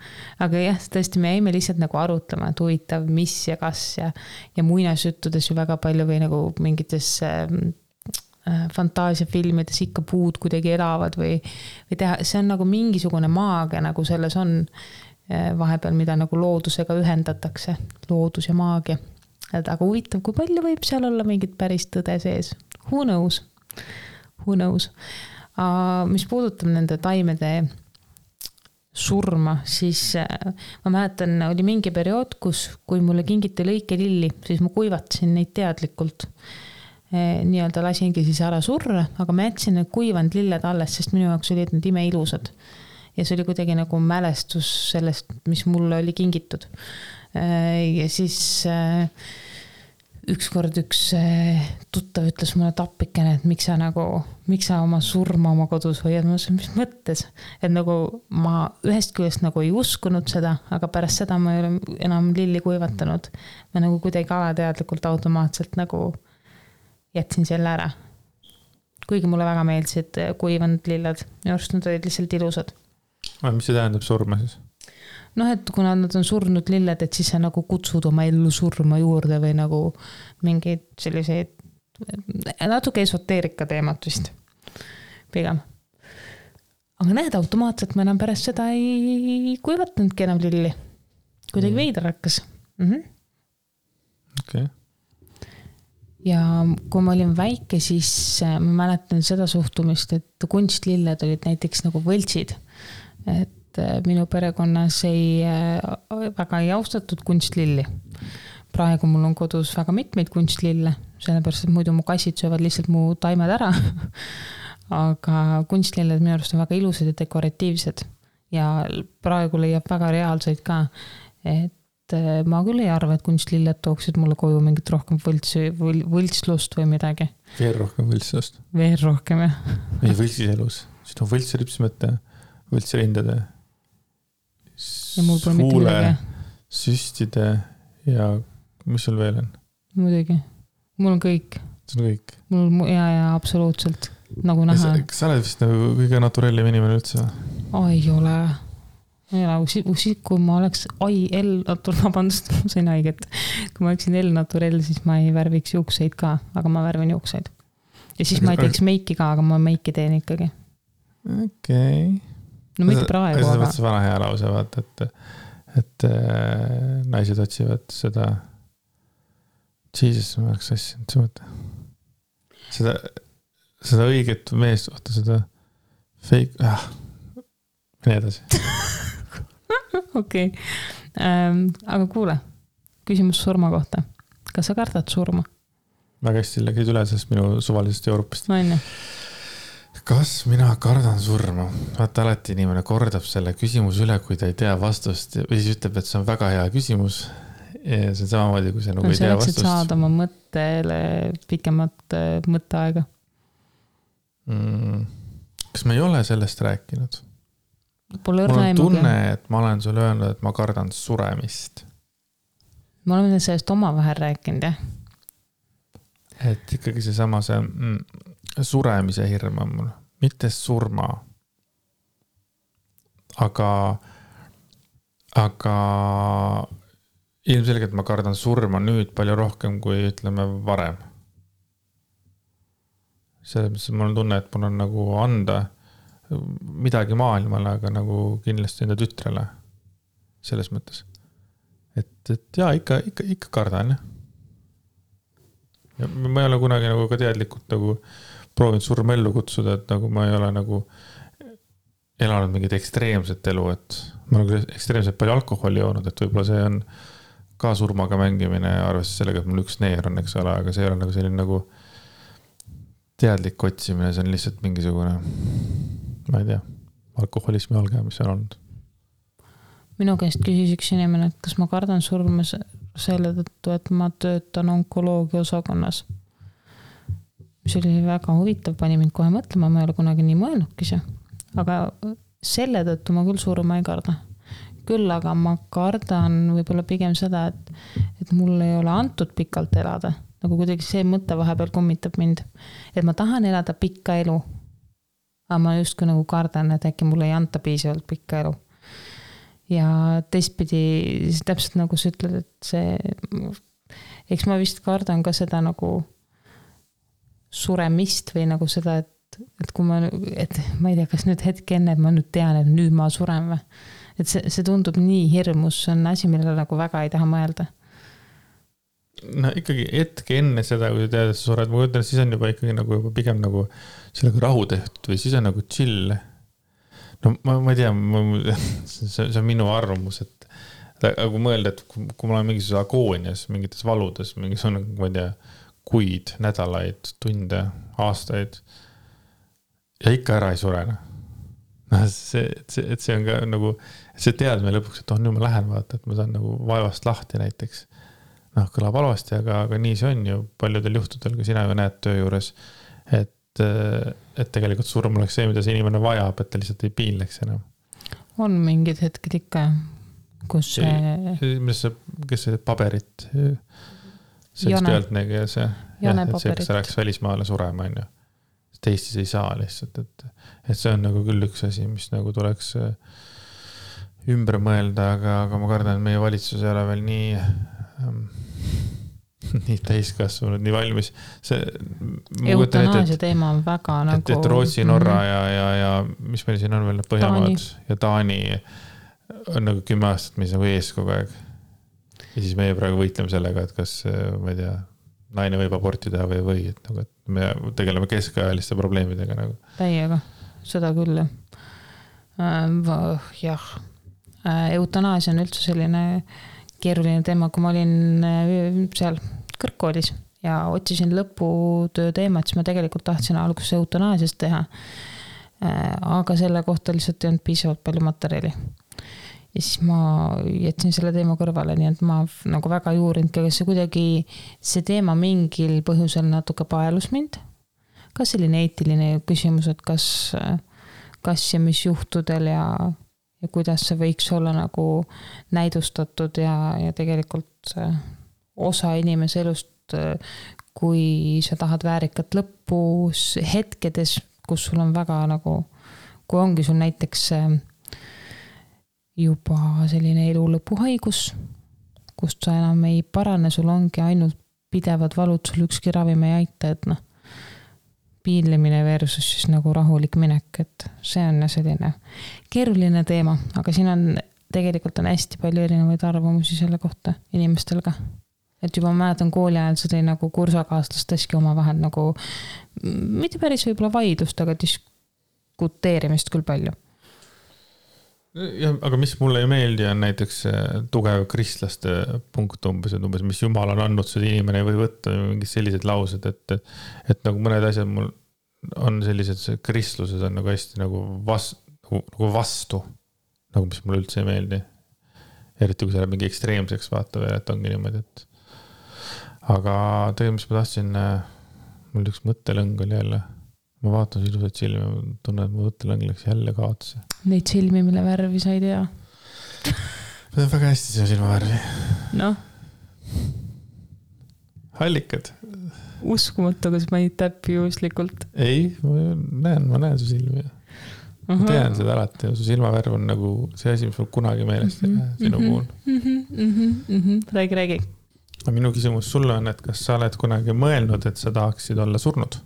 aga jah, tõesti me jäime lihtsalt nagu arutlema, et huvitav, mis ja kas ja muinasjuttudes ju väga palju või nagu mingites fantaasiafilmides ikka puud kuidagi elavad või teha, see on nagu mingisugune maagia nagu selles on vahepeal, mida nagu loodusega ühendatakse, loodus ja maagia. Aga huvitav, kui palju võib seal olla mingit päris tõde sees? Who knows? Mis puudutab nende taimede surma, siis ma mäletan, oli mingi periood, kui mulle kingiti lõikelilli, siis ma kuivatasin neid teadlikult. Nii-öelda lasingi siis ära surra, aga ma jätsin need kuivanud lilled alles, sest minu jaoks olid need imeilusad. Ja see oli kuidagi nagu mälestus sellest, mis mulle oli kingitud. Ja siis ükskord üks tuttav ütles mulle tappikene, et miks sa oma surma oma kodus hoiad, ma ütlesin, mis mõttes, et nagu ma ühest küljest nagu ei uskunud seda, aga pärast seda ma ei ole enam lilli kuivatanud. Ma nagu kuidagi alateadlikult automaatselt nagu jätsin selle ära. Kuigi mulle väga meeldisid kuivanud lilled, minu arust nad olid lihtsalt ilusad. Mis see tähendab surma siis? Et kuna nad on surnud lilled, et siis sa nagu kutsud oma ellu surma juurde või nagu mingeid selliseid natuke esoteerika teemat vist pigem. Aga näed, automaatselt ma enam pärast seda ei kuivatanudki enam lilli. Kuidagi veider hakkas. Okay. Ja kui ma olin väike, siis ma mäletan seda suhtumist, et kunstlilled olid näiteks nagu võltsid. Et minu perekonnas väga ei austatud kunstlilli. Praegu mul on kodus väga mitmeid kunstlille, sellepärast, et muidu mu kassid söövad lihtsalt mu taimed ära. Aga kunstlilled minu arust on väga ilusad ja dekoratiivsed. Ja praegu leiab väga reaalseid ka. Et ma küll ei arva, et kunstlilled tooksid mulle koju mingit rohkem võltslust või midagi. Veel rohkem võltslust. Veel rohkem, jah. Meie võltsis elus. Siin on võltsripsmete, võltsrindade, huule, süstide ja mis sul veel on? Muidugi. Mul on kõik. See on kõik? Ja, absoluutselt. Nagu näha. Kas sa oled vist nagu kõige naturellim inimene üldse? Ei ole. Kui ma oleks vabandust, ma sain haiget. Kui ma oleksin L-naturell, siis ma ei värviks juukseid ka, aga ma värvin juukseid. Ja siis ma ei teeks meiki ka, aga ma meiki teen ikkagi. Okei. No mitte praegu, aga... See vana hea lause, vaata, et naised otsivad seda Jesus, ma oleks asjanud, see mõte. Seda õiget meest, vaata seda fake, mine edasi. Okei. Aga kuule, küsimus surma kohta. Kas sa kardad surma? Väga hästi läksid üle sellest minu suvalisest Euroopast. No, enne. Kas mina kardan surma? Vaata, alati inimene kordab selle küsimus üle, kui ta ei tea vastust või siis ütleb, et see on väga hea küsimus. Ja see on samamoodi, kui see nagu ei tea vastust. See saada oma mõttele pikemat mõtteaega. Kas ma ei ole sellest rääkinud? Mul on tunne, et ma olen sulle öelnud, et ma kardan suremist. Ma olen sellest oma vahel rääkinud, jah. Et ikkagi see sama suremise hirm on mul, mitte surma. Aga ilmselgelt ma kardan surma nüüd palju rohkem kui ütleme varem. Selles mõttes mul on tunne, et mul on nagu anda midagi maailmale, aga nagu kindlasti enda tütrele selles mõttes. Et jaa, ikka kardan, jah. Ja ma ei ole kunagi nagu ka teadlikult nagu proovinud surma ellu kutsuda, et nagu ma ei ole nagu elanud mingit ekstreemset elu, et ma olen ekstreemselt palju alkoholi joonud, et võib-olla see on ka surmaga mängimine arvestades sellega, et mul üks neer on, eks ole, aga see ei ole nagu selline nagu teadlik otsimine, see on lihtsalt mingisugune, ma ei tea, alkoholismi alge, mis on olnud. Minu käest küsis üks inimene, et kas ma kardan surma selle tõttu, et ma töötan onkoloogia osakonnas. Mis oli väga huvitav, pani mind kohe mõtlema, ma ei ole kunagi nii mõelnudki see. Aga selle tõttu ma küll surma ei karda. Küll aga ma kardan võib-olla pigem seda, et mul ei ole antud pikalt elada. Nagu kuidagi see mõte vahepeal kummitab mind. Et ma tahan elada pikka elu. Aga ma justkui nagu kardan, et äkki mulle ei anta piisavalt pikka elu. Ja teistpidi, täpselt nagu sa ütled, et see, eks ma vist kardan ka seda nagu suremist või nagu seda, et kui ma ei tea, kas nüüd hetk enne, et ma nüüd tean, et nüüd ma suren või. Et see tundub nii hirmus, see on asi, millele nagu väga ei taha mõelda. No ikkagi hetk enne seda, kui tead, et sa sured, ma ütlen, siis on juba ikkagi nagu juba pigem nagu sellega rahu tehtud või siis on nagu chill. No ma ei tea, see on minu arvamus, et kui mõelda, et kui ma olen mingisuguses agoonias, mingites valudes, mingisugune, ma ei tea, kuid, nädalaid, tunde, aastaid ja ikka ära ei surene. No see on ka nagu, see teadme lõpuks, et nüüd ma lähen vaata, et ma saan nagu vaevast lahti näiteks. Kõlab halvasti, aga nii see on ju paljudel juhtudel, kui sina ju näed töö juures, et tegelikult surm oleks see, mida see inimene vajab, et ta lihtsalt ei piinleks enam. On mingid hetked ikka, kus kes see paberit see üks pealtnägija see, kes rääks välismaale surema on ju. Eestis ei saa lihtsalt, et see on nagu küll üks asi, mis nagu tuleks ümber mõelda, aga ma kardan, et meie valitsus ei ole veel nii täiskasvanud, nii valmis. Eutanaasia teema on väga nagu... Et Rootsi, Norra ja mis meil siin on veel Põhjamaad ja Taani on nagu 10 aastat, mis nagu ees kogu aeg. Ja siis meie praegu võitleme sellega, et kas, ma ei tea, naine võib aborti teha või et me tegeleme keskajaliste probleemidega nagu. Täiega, seda küll. Jah, eutanaasia on üldse selline keeruline teema, kui ma olin seal kõrgkoolis ja otsisin lõputöö teemat, siis ma tegelikult tahtsin alguses eutanaasiast teha. Aga selle kohta lihtsalt ei olnud piisavalt palju materjali. Ja siis ma jätsin selle teema kõrvale, nii et ma nagu väga ei uurinud, kas see kuidagi see teema mingil põhjusel natuke paelus mind. Kas selline eetiline küsimus, et kas ja mis juhtudel ja kuidas see võiks olla nagu näidustatud ja tegelikult osa inimese elust, kui sa tahad väärikat lõppu hetkedes, kus sul on väga nagu, kui ongi sul näiteks juba selline elu lõpuhaigus, kust sa enam ei parane, sul ongi ainult pidevad valud, sul ükski ravim ei aita, et piinlemine versus siis nagu rahulik minek, et see on selline keeruline teema, aga siin on tegelikult on hästi palju erinevaid arvamusi selle kohta inimestel ka. Et juba mäletan kooli ajal see tõi nagu kursakaaslasteski oma vahel nagu mitte päris võib-olla vaidlust, aga diskuteerimist küll palju. Ja, aga mis mulle ei meeldi on näiteks tugev kristlaste punkt umbes, mis Jumal on andnud, seda inimene ei või võtta mingid sellised laused, et nagu mõned asjad mul on sellised kristluses on nagu hästi nagu vastu, nagu mis mulle üldse ei meeldi. Eriti kui see on mingi ekstreemseks vaata veel, et ongi niimoodi, et aga tegelikult, mis ma tahtsin, mul üks mõttelõng oli jälle. Ma vaatan ilusat silmi ja tunnen, et mu mõttelõng läks jälle kaotsi. Neid silmi, mille värvi sa ei tea? See on väga hästi see silmavärvi. Noh. Hallikad. Uskumatu, kas ma ei täppi juhuslikult. Ei, ma näen su silmi. Ma tean seda alati. Su silmavärv on nagu see asi, mis mul kunagi meelest sinu puhul. Räägi. Minu küsimus sulle on, et kas sa oled kunagi mõelnud, et sa tahaksid olla surnud?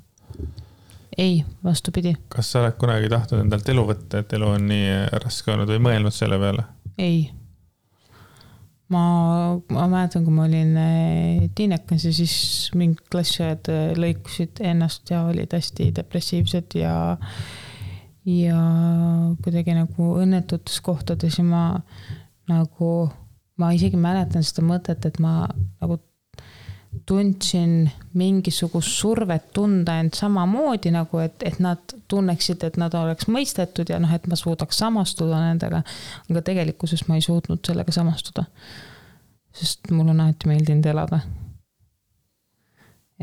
Ei, vastupidi. Kas sa oled kunagi tahtnud endalt elu võtta, et elu on nii raske olnud või mõelnud selle peale? Ei. Ma mäletan, kui ma olin tiinekas ja siis mingid klassiajad lõikusid ennast ja olid hästi depressiivsed ja kuidagi nagu õnnetutes kohtades ja ma isegi mäletan seda mõtet, et ma nagu tundsin mingisugust survet tunda end samamoodi nagu, et nad tunneksid, et nad oleks mõistetud ja et ma suudaks samastuda nendega, aga tegelikkuses ma ei suutnud sellega samastuda, sest mul on alati meeldinud elada.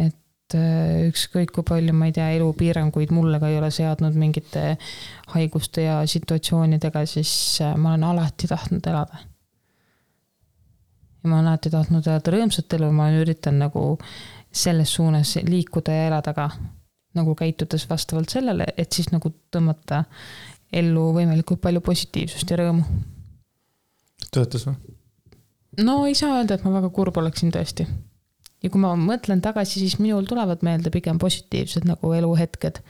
Et ükskõik kui palju, ma ei tea, elupiiranguid mulle ka ei ole seadnud mingite haiguste ja situatsioonidega, siis ma olen alati tahtnud elada. Ja ma olen alati tahtnud elada rõõmsat elu, ma üritan nagu selles suunas liikuda ja elada ka, nagu käitudes vastavalt sellele, et siis nagu tõmmata ellu võimalikult palju positiivsust ja rõõmu. Töötas või? No ei saa öelda, et ma väga kurb oleksin tõesti. Ja kui ma mõtlen tagasi, siis minul tulevad meelde pigem positiivsed nagu eluhetked.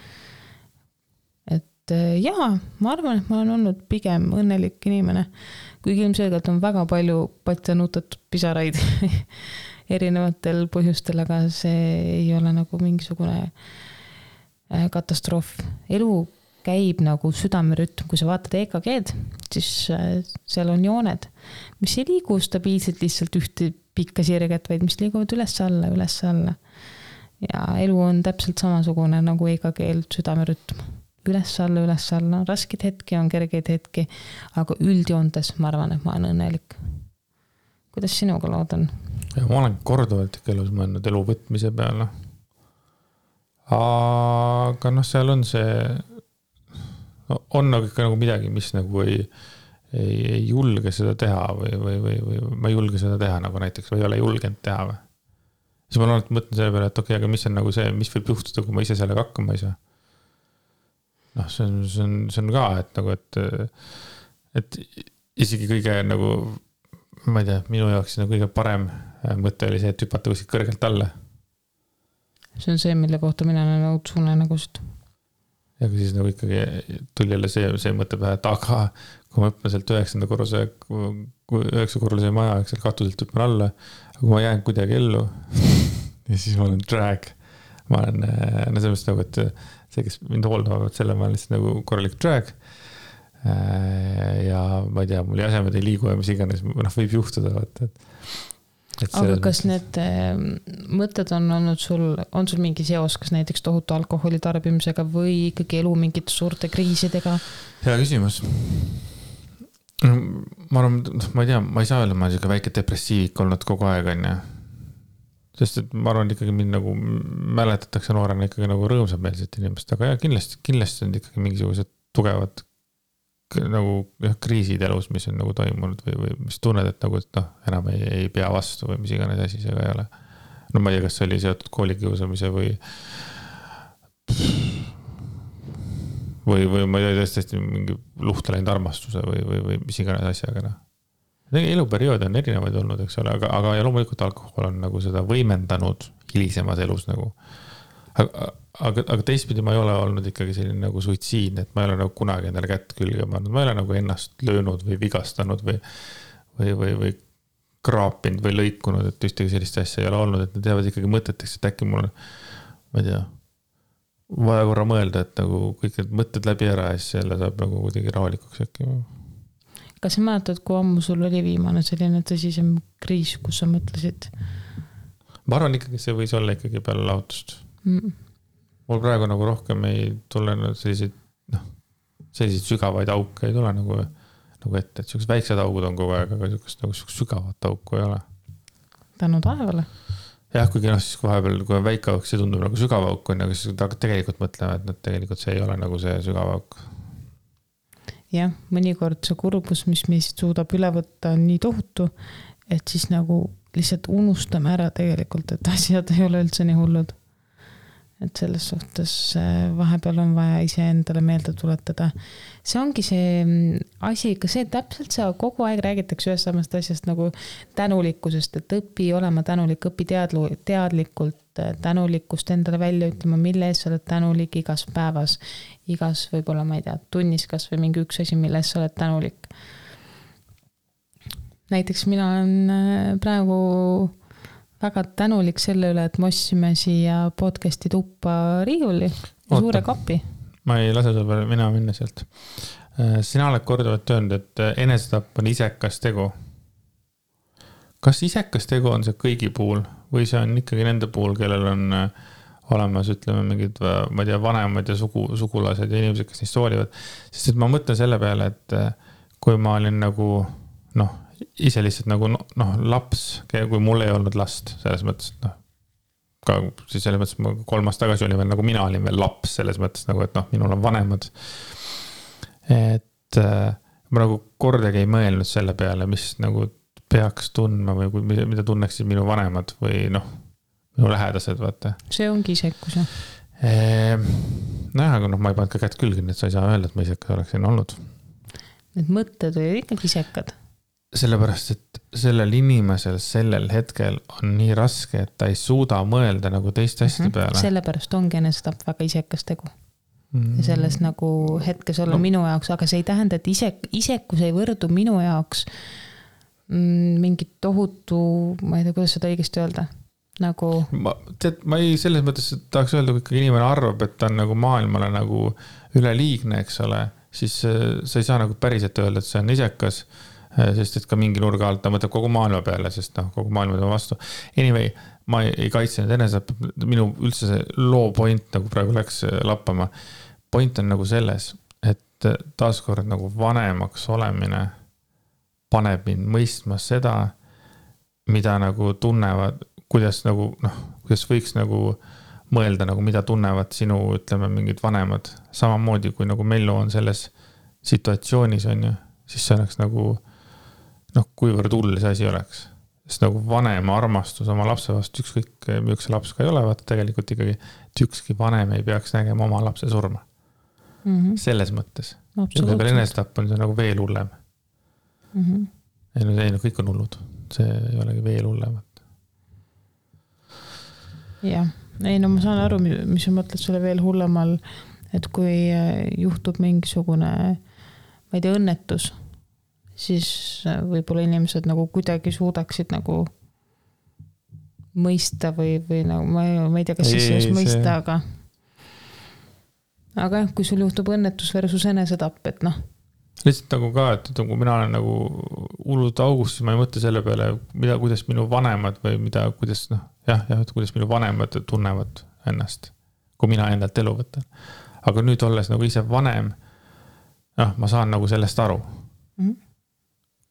Et jaa, ma arvan, et ma olen olnud pigem õnnelik inimene, kuigi ilmselgelt on väga palju patjanutatud pisaraid erinevatel põhjustel, aga see ei ole nagu mingisugune katastroof. Elu käib nagu südamerütm, kui sa vaatad EKG-d, siis seal on jooned, mis ei liigu stabiilselt lihtsalt ühte pikka sirget, vaid mis liiguvad üles-alla, üles-alla. Ja elu on täpselt samasugune nagu EKG-l südamerütm. Üles-alla, üles-alla. Raskid hetki on kergeid hetki, aga üldjoontes ma arvan, et ma olen õnnelik. Kuidas sinuga lood on? Ja, ma olen korduvalt ikka elus mõelnud elu võtmise peale. Aga seal on see on nagu ikka nagu midagi, mis nagu ei julge seda teha või ma ei julge seda teha nagu näiteks või ei ole julgenud teha või. Siis ma mõtlen selle peale, et okei, aga mis on nagu see, mis võib juhtuda, kui ma ise sellega hakkama ei saa. See on ka, et nagu, et isegi kõige nagu, ma ei tea, minu jaoks nagu kõige parem mõte oli see, et hüpata kuskilt kõrgelt alla. See on see, mille kohta mina olen õudsuune nägust. Ja kui siis nagu ikkagi tuli jälle see mõte pähe, et aga kui ma hüppan sealt 9. korruse maja, seal katuselt hüppan alla, aga kui ma jään kuidagi ellu ja siis ma olen drag. Ma olen, selles nagu, et see, kes mind hooldavad, selle ma olen lihtsalt nagu korralik drag. Ja ma ei tea, mul jäsemed ei liigu ja mis iganes, võib juhtuda. Aga kas need mõtted on olnud on sul mingi seos, kas näiteks tohutu alkoholi tarbimisega või ikkagi elu mingite suurte kriisidega? Hea küsimus. Ma arvan, ma ei tea, ma ei saa öelda, ma olen siuke väike depressiivik olnud kogu aeg, on ja. Sest et ma arvan, ikkagi mind nagu mäletatakse noorena ikkagi nagu rõõmsameelset inimest, aga ja, kindlasti on ikkagi mingisugused tugevad nagu kriisid elus, mis on nagu toimunud või mis tunned, et nagu, et enam ei pea vastu või mis iganes asi seega ei ole. No ma ei tea, kas see oli seotud koolikiusamise või ma ei tea, tõesti mingi luhta läinud armastuse või mis iganes asjaga. Eluperiood on erinevaid olnud, eks ole, aga ja loomulikult alkohol on nagu seda võimendanud hilisemas elus nagu. Aga teistpidi ma ei ole olnud ikkagi selline nagu suitsiidne, et ma ei ole nagu kunagi endale kätt külge pannud, ma ei ole nagu ennast löönud või vigastanud või kraapinud või lõikunud, et ühtegi sellist asja ei ole olnud, et need teevad ikkagi mõteteks, et äkki mul on, ma ei tea, vaja korra mõelda, et nagu kõik need mõtted läbi ära ja siis jälle saab nagu kuidagi rahulikuks äkki. Kas sa mäletad, kui ammu sul oli viimane selline tõsisem kriis, kus sa mõtlesid? Ma arvan ikkagi, see võis olla ikkagi peale lahutust. Mul praegu nagu rohkem ei tule selliseid sügavaid auke ei tule nagu ette, et sellised väiksed augud on kogu aeg, aga sellised sügavat auku ei ole. Tänu taevale? Jah, kuigi siis kui vahepeal, kui on väike auk, see tundub nagu sügav auk on, aga siis tegelikult mõtleme, et tegelikult see ei ole nagu see sügav auk. Jah, mõnikord see kurbus, mis meist suudab üle võtta, on nii tohutu, et siis nagu lihtsalt unustame ära tegelikult, et asjad ei ole üldse nii hullud. Et selles suhtes vahepeal on vaja ise endale meelde tuletada. See ongi see asi, ka see täpselt see kogu aeg räägitakse ühest samast asjast nagu tänulikkusest, et õpi olema tänulik, õpi teadlikult tänulikkust endale välja ütlema, mille ees sa oled tänulik igas päevas, igas võib-olla, ma ei tea, tunnis kas või mingi üks asi, mille ees sa oled tänulik. Näiteks mina olen praegu väga tänulik selle üle, et me ostsime siia podcasti tuppa riiuli suure kapi. Ma ei lase sul peale mina minna sealt. Sina oled korduvalt öelnud, et enesetapp on isekas tegu. Kas isekas tegu on see kõigi puhul või see on ikkagi nende puhul, kellel on olemas, ütleme, mingid, ma ei tea, vanemad ja sugulased ja inimesed, kes neist hoolivad. Sest et ma mõtlen selle peale, et kui ma olin nagu, ise lihtsalt nagu laps, kui mul ei olnud last, selles mõttes, et ka siis selles mõttes, ma 3 aastat tagasi olin veel nagu mina olin veel laps selles mõttes nagu, et minul on vanemad. Et ma nagu kordagi ei mõelnud selle peale, mis nagu peaks tundma või mida tunneksid minu vanemad või minu lähedased, vaata. See ongi isekus, jah? Aga ma ei pannud ka kätt külge, et sa ei saa öelda, et ma isekas oleksin olnud. Need mõtted olid ikkagi isekad. Sellepärast, et sellel inimesel sellel hetkel on nii raske, et ta ei suuda mõelda nagu teiste asjade peale. Sellepärast ongi enesetapp väga isekas tegu. Ja selles nagu hetkes olla minu jaoks, aga see ei tähenda, et isekus ei võrdu minu jaoks mingit tohutu, ma ei tea, kuidas seda õigesti öelda, nagu... Ma ei selles mõttes tahaks öelda, kui ikkagi inimene arvab, et ta on nagu maailmale nagu üleliigne, eks ole, siis sa ei saa nagu päriselt öelda, et see on isekas, sest et ka mingi nurga alt ta mõtleb kogu maailma peale, sest kogu maailma tema vastu. Anyway, ma ei kaitse nüüd enesest, minu üldse see loo point nagu praegu läks lappama. Point on nagu selles, et taaskord nagu vanemaks olemine paneb mind mõistma seda, mida nagu tunnevad, kuidas nagu, kuidas võiks nagu mõelda, nagu mida tunnevad sinu, ütleme, mingid vanemad. Samamoodi, kui nagu Mello on selles situatsioonis, on ju, siis see oleks nagu, kuivõrd hull see asi oleks. Sest nagu vanema armastus oma lapse vastu, ükskõik üks laps ka ei ole, vaata tegelikult ikkagi, et ükski vanem ei peaks nägema oma lapse surma. Selles mõttes. Ja veel enesetapp on see nagu veel hullem. Ei, kõik on hullud. See ei olegi veel hullemat. Jah, ei ma saan aru, mis sa mõtled selle veel hullemal, et kui juhtub mingisugune, ma ei tea, õnnetus, siis võib-olla inimesed nagu kuidagi suudaksid nagu mõista või nagu, ma ei tea, kas siis mõista, aga kui sul juhtub õnnetus versus enesetapp, et lihtsalt nagu ka, et kui mina olen nagu hullud august, siis ma ei mõtle selle peale, kuidas minu vanemad või kuidas, et kuidas minu vanemad tunnevad ennast, kui mina endalt elu võtan. Aga nüüd olles nagu ise vanem, ma saan nagu sellest aru.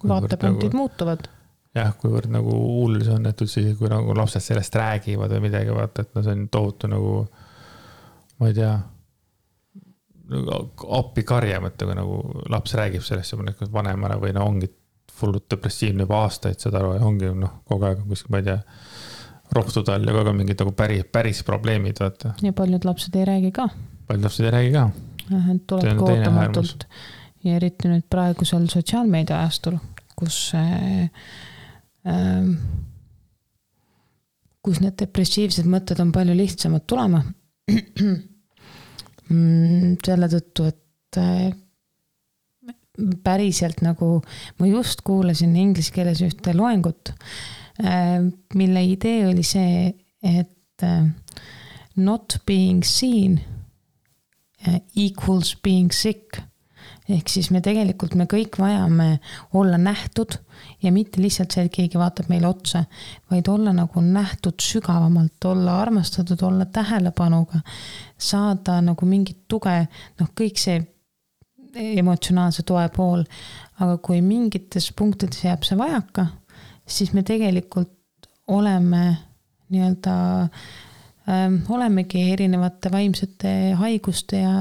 Vaatepunktid nagu, muutuvad. Jah, kuivõrd nagu hull see on, et üldse, kui nagu lapsed sellest räägivad või midagi, vaata, et see on tohutu nagu, ma ei tea, appi karja mõtte, kui nagu laps räägib sellest ja vanemana või ongi fullut depressiivne juba aastaid seda aru ja ongi kogu aeg kuskil, ma ei tea, rohtud all ja kogu aeg mingid nagu päris probleemid, vaata. Ja paljud lapsed ei räägi ka. Paljud lapsed ei räägi ka. Tuleb kootamatult ja eriti nüüd praegusel sotsiaalmeedia ajastul, kus need depressiivsed mõtted on palju lihtsamad tulema. Selle tõttu, et päriselt nagu ma just kuulasin inglise keeles ühte loengut, mille idee oli see, et not being seen equals being sick. Ehk siis me kõik vajame olla nähtud ja mitte lihtsalt see, et keegi vaatab meile otsa, vaid olla nagu nähtud sügavamalt, olla armastatud, olla tähelepanuga, saada nagu mingit tuge, kõik see emotsionaalse toe pool, aga kui mingites punktides jääb see vajaka, siis me tegelikult olemegi erinevate vaimsete haiguste ja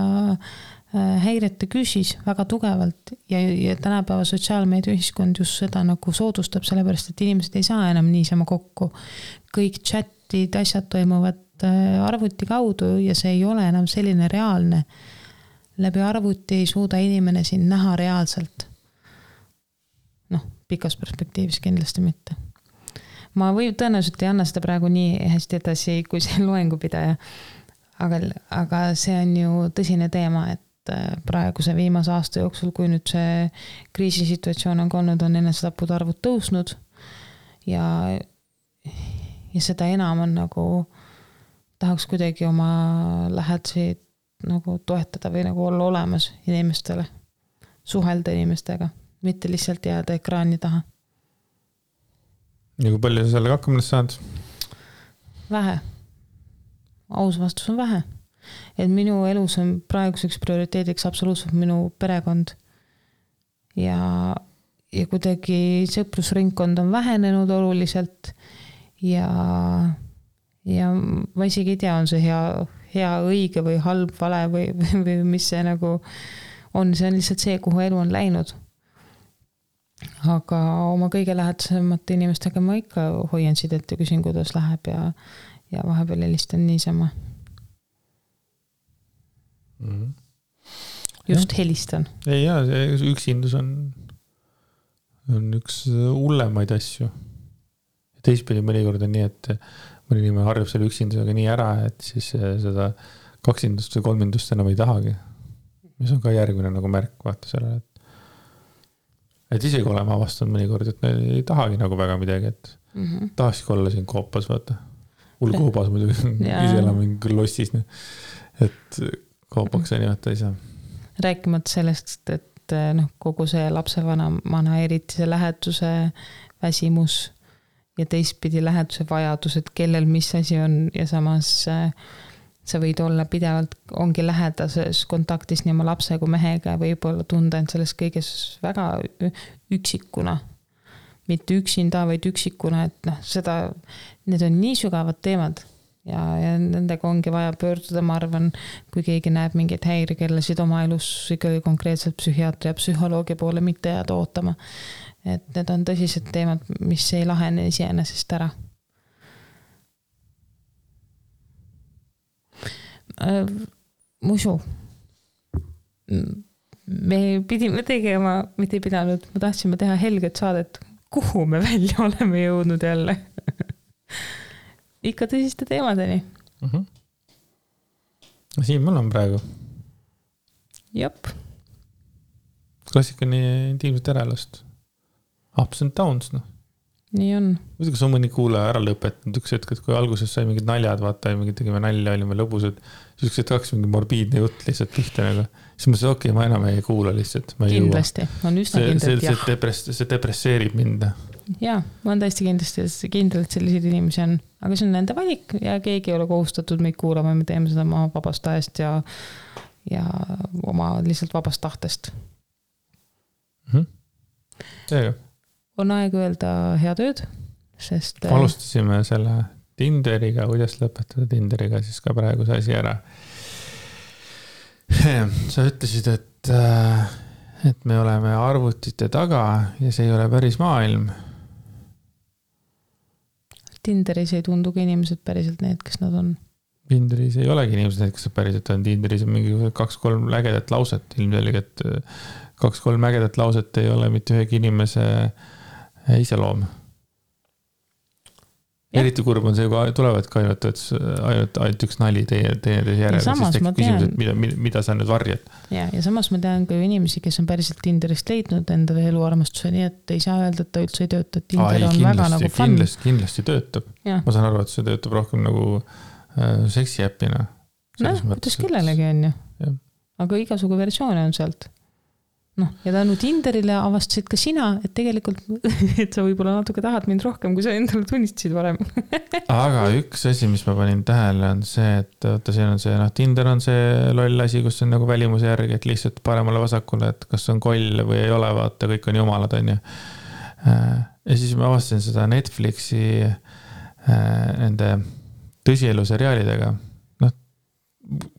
häirete küsis väga tugevalt ja tänapäeva sotsiaalmeedia ühiskond just seda nagu soodustab, sellepärast, et inimesed ei saa enam niisama kokku. Kõik chatid, asjad toimuvad arvuti kaudu ja see ei ole enam selline reaalne. Läbi arvuti ei suuda inimene siin näha reaalselt. Pikas perspektiivis kindlasti mitte. Ma tõenäoliselt ei anna seda praegu nii hästi edasi, kui see loengupidaja. Aga see on ju tõsine teema, et praeguse viimase aasta jooksul, kui nüüd see kriisisituatsioon on olnud, on enesetappude arvud tõusnud ja seda enam on nagu tahaks kuidagi oma lähedasi nagu toetada või nagu olla olemas inimestele, suhelda inimestega, mitte lihtsalt jääda ekraani taha. Ja kui palju sa sellega hakkama saad? Vähe. Aus vastus on vähe. Et minu elus on praeguseks prioriteediks absoluutselt minu perekond ja kuidagi sõprusringkond on vähenenud oluliselt ja ja ma isegi ei tea, on see hea õige või halb vale või mis see nagu on, see on lihtsalt see, kuhu elu on läinud. Aga oma kõige lähedasemate inimestega ma ikka hoian sidet ja küsin, kuidas läheb ja vahepeal helistan niisama. Just helistan. Ei jaa, üksindus on üks hullemaid asju. Teistpidi mõnikord on nii, et mõni inimene harjub selle üksindusega nii ära, et siis seda kaksindust või kolmindust enam ei tahagi. Mis on ka järgmine nagu märk, vaata sellele, et isegi olema avastanud mõnikord, et ei tahagi nagu väga midagi, et tahakski olla siin koopas, vaata. Koobas muidugi, ise elame lossis, et koopaks ja nimeta ei saa. Rääkimata sellest, et kogu see lapsevanamana eriti see läheduse väsimus ja teistpidi läheduse vajadus, et kellel mis asi on ja samas sa võid olla pidevalt, ongi lähedases kontaktis nii oma lapse kui mehega ja võib-olla tunda end selles kõiges väga üksikuna. Mitte üksinda, vaid üksikuna, et need on nii sügavad teemad ja nendega ongi vaja pöörduda, ma arvan, kui keegi näeb mingeid häirekellasid oma elus ikkagi konkreetselt psühhiaatri ja psühholoogi poole mitte jääda ootama. Et need on tõsised teemad, mis ei lahene iseenesest ära. Musu. Me pidime tegema, mitte ei pidanud, ma tahtsime teha helget saadet, kuhu me välja oleme jõudnud jälle. Ikka tõsiste teemadeni. Siin mul on praegu. Jop. Klassika nii intiimset äralast. Ups and downs, Nii on. Kas on mõni kuulaja ära lõpetanud üks hetk, et kui alguses sai mingid naljad, vaata, mingid tegime nalja, olime lõbusad, siis üks hetk mingi morbiidne jutt lihtsalt pihta nagu. Siis ma ütlesin, ma enam ei kuula lihtsalt. Kindlasti, on üsna kindlalt jah. See depresseerib mind. Jaa, ma olen täiesti kindlalt selliseid inimesi on, aga see on nende valik ja keegi ei ole kohustatud meid kuulama, me teeme seda oma vabast ajast ja oma lihtsalt vabast tahtest. Seega. On aeg öelda hea tööd, sest alustasime selle Tinderiga, kuidas lõpetada Tinderiga siis ka praegu see asi ära. Sa ütlesid, et me oleme arvutite taga ja see ei ole päris maailm. Tinderis ei tundugi inimesed päriselt need, kes nad on. Tinderis ei olegi inimesed need, kes päriselt on. Tinderis on mingi 2-3 ägedat lauset. Ilmselgelt 2-3 ägedat lauset ei ole mitte ühegi inimese iseloom. Eriti kurb on see, kui tulevad ka ainult üks nali teie järele, siis tekib küsimus, mida sa nüüd varjad. Ja samas ma tean ka inimesi, kes on päriselt Tinderist leidnud endale eluarmastuse, nii et ei saa öelda, et ta üldse ei tööta. Tinder on väga nagu fun. Kindlasti töötab. Ja. Ma saan aru, et see töötab rohkem nagu seksi äppina. Kuidas kellelegi on ju. Aga igasugu versioone on sealt. Ja tänu Tinderile avastasid ka sina, et tegelikult et sa võib-olla natuke tahad mind rohkem, kui sa endale tunnistasid varem. Aga üks asi, mis ma panin tähele, on see, et siin on see, Tinder on see loll asi, kus on nagu välimuse järgi, et lihtsalt paremale vasakule, et kas on koll või ei ole, vaata, kõik on jumalad, on ju. Ja siis ma avastasin seda Netflixi nende tõsielu seriaalidega.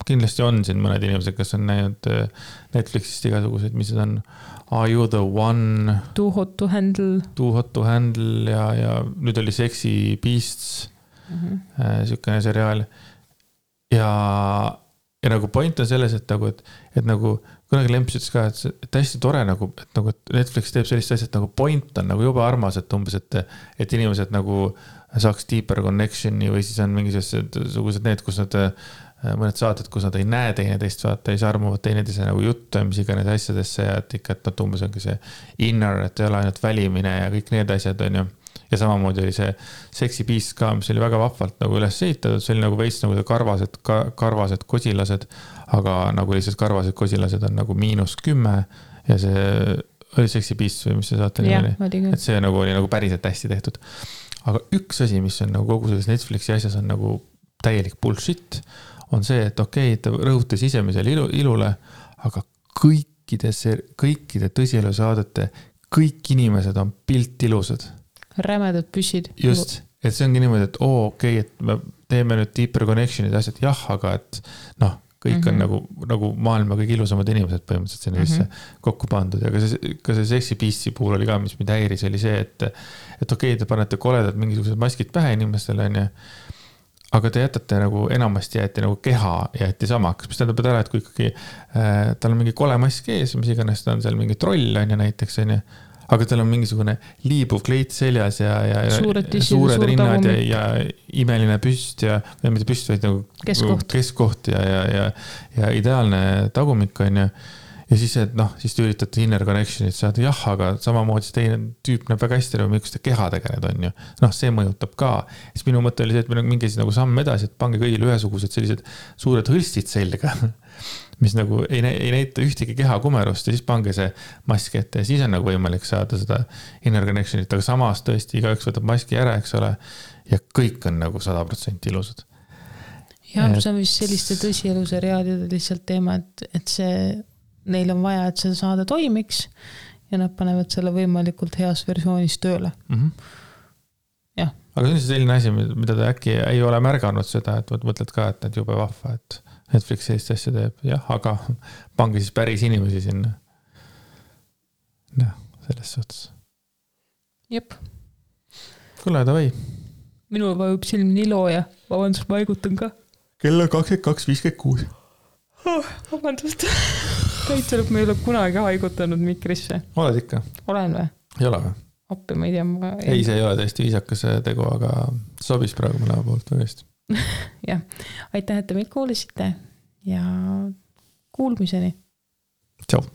Kindlasti on siin mõned inimesed, kes on näinud Netflixist igasuguseid, mis on Are You the One? Too Hot to Handle. Too Hot to Handle ja nüüd oli Sexy Beasts, sükene seriaal. Ja nagu point on selles, et nagu kunagi Lemps ütles ka, et hästi tore nagu, et Netflix teeb sellist asja, et nagu point on nagu juba armas, et umbes, et inimesed nagu saaks deeper connectioni või siis on mingisugused need, kus nad mõned saated, kus nad ei näe teineteist, vaata, ei sarmuvad teineteise nagu juttu, mis iganes asjadesse ja et ikka, et nad umbes ongi see inner, et ei ole ainult välimine ja kõik need asjad on ju. Ja samamoodi oli see Sexy Beast ka, mis oli väga vahvalt nagu üles ehitatud, see oli nagu veits nagu karvased kosilased, aga nagu lihtsalt karvased kosilased on nagu -10 ja see oli Sexy Beast või mis see saate oli. Et see nagu oli nagu päriselt hästi tehtud. Aga üks asi, mis on nagu kogu selles Netflixi asjas on nagu täielik bullshit, on see, et okei, ta rõhutas sisemisele ilule, aga kõikide tõsielu saadete, kõik inimesed on piltilusad. Rämedad püssid. Just. et see ongi niimoodi, et okei, et me teeme nüüd deeper connection'id ja asjad, jah, aga et noh, kõik on nagu maailma kõige ilusamad inimesed põhimõtteliselt sinna sisse kokku pandud ja ka see Sexy Beast'i puhul oli ka, mis mind häiris, oli see, et okei, te panete koledad mingisugused maskid pähe inimestele, on ju, aga te jätate nagu enamasti jäeti nagu keha jäeti samaks, mis tähendab ära, et kui ikkagi tal on mingi kole mask ees, mis iganes ta on seal mingi troll, on ju näiteks, on ju, aga tal on mingisugune liibuv kleit seljas ja suured rinnad ja imeline püst ja mitte püst, vaid nagu keskkoht ja ideaalne tagumik on ju. Ja siis, et noh, siis te üritate inner connection'it saada, jah, aga samamoodi see teine tüüp näeb väga hästi, miks te keha tegeled on ju. Noh, see mõjutab ka. Siis minu mõte oli see, et meil on mingi nagu samm edasi, et pange kõigile ühesugused sellised suured hõlstid selga, mis nagu ei näita ühtegi keha kumerust ja siis pange see mask ette ja siis on nagu võimalik saada seda inner connection'it, aga samas tõesti igaüks võtab maski ära, eks ole, ja kõik on nagu 100% ilusad. Ja see on vist selliste tõsieluse lihtsalt teema, et see neil on vaja, et see saade toimiks ja nad panevad selle võimalikult heas versioonis tööle. Jah. Aga see on selline asi, mida ta äkki ei ole märganud seda, et mõtled ka, et need jube vahva, et Netflix sellist asja teeb. Jah, aga pange siis päris inimesi sinna. Noh, selles suhtes. Jep. Kuule, davai. Minul vajub silm nii looja. Vabandust, ma haigutan ka. Kell on 22.56. Vabandust. Täitselub, ma ei ole kunagi haigutanud mikrisse. Oled ikka? Olen või? Ei ole või? Appi, ma ei tea. Ei, see ei ole täiesti viisakas tegu, aga sobis praegu mõlema poolt väga hästi. Jah, aitäh, et te meid kuulisite ja kuulmiseni. Tšau.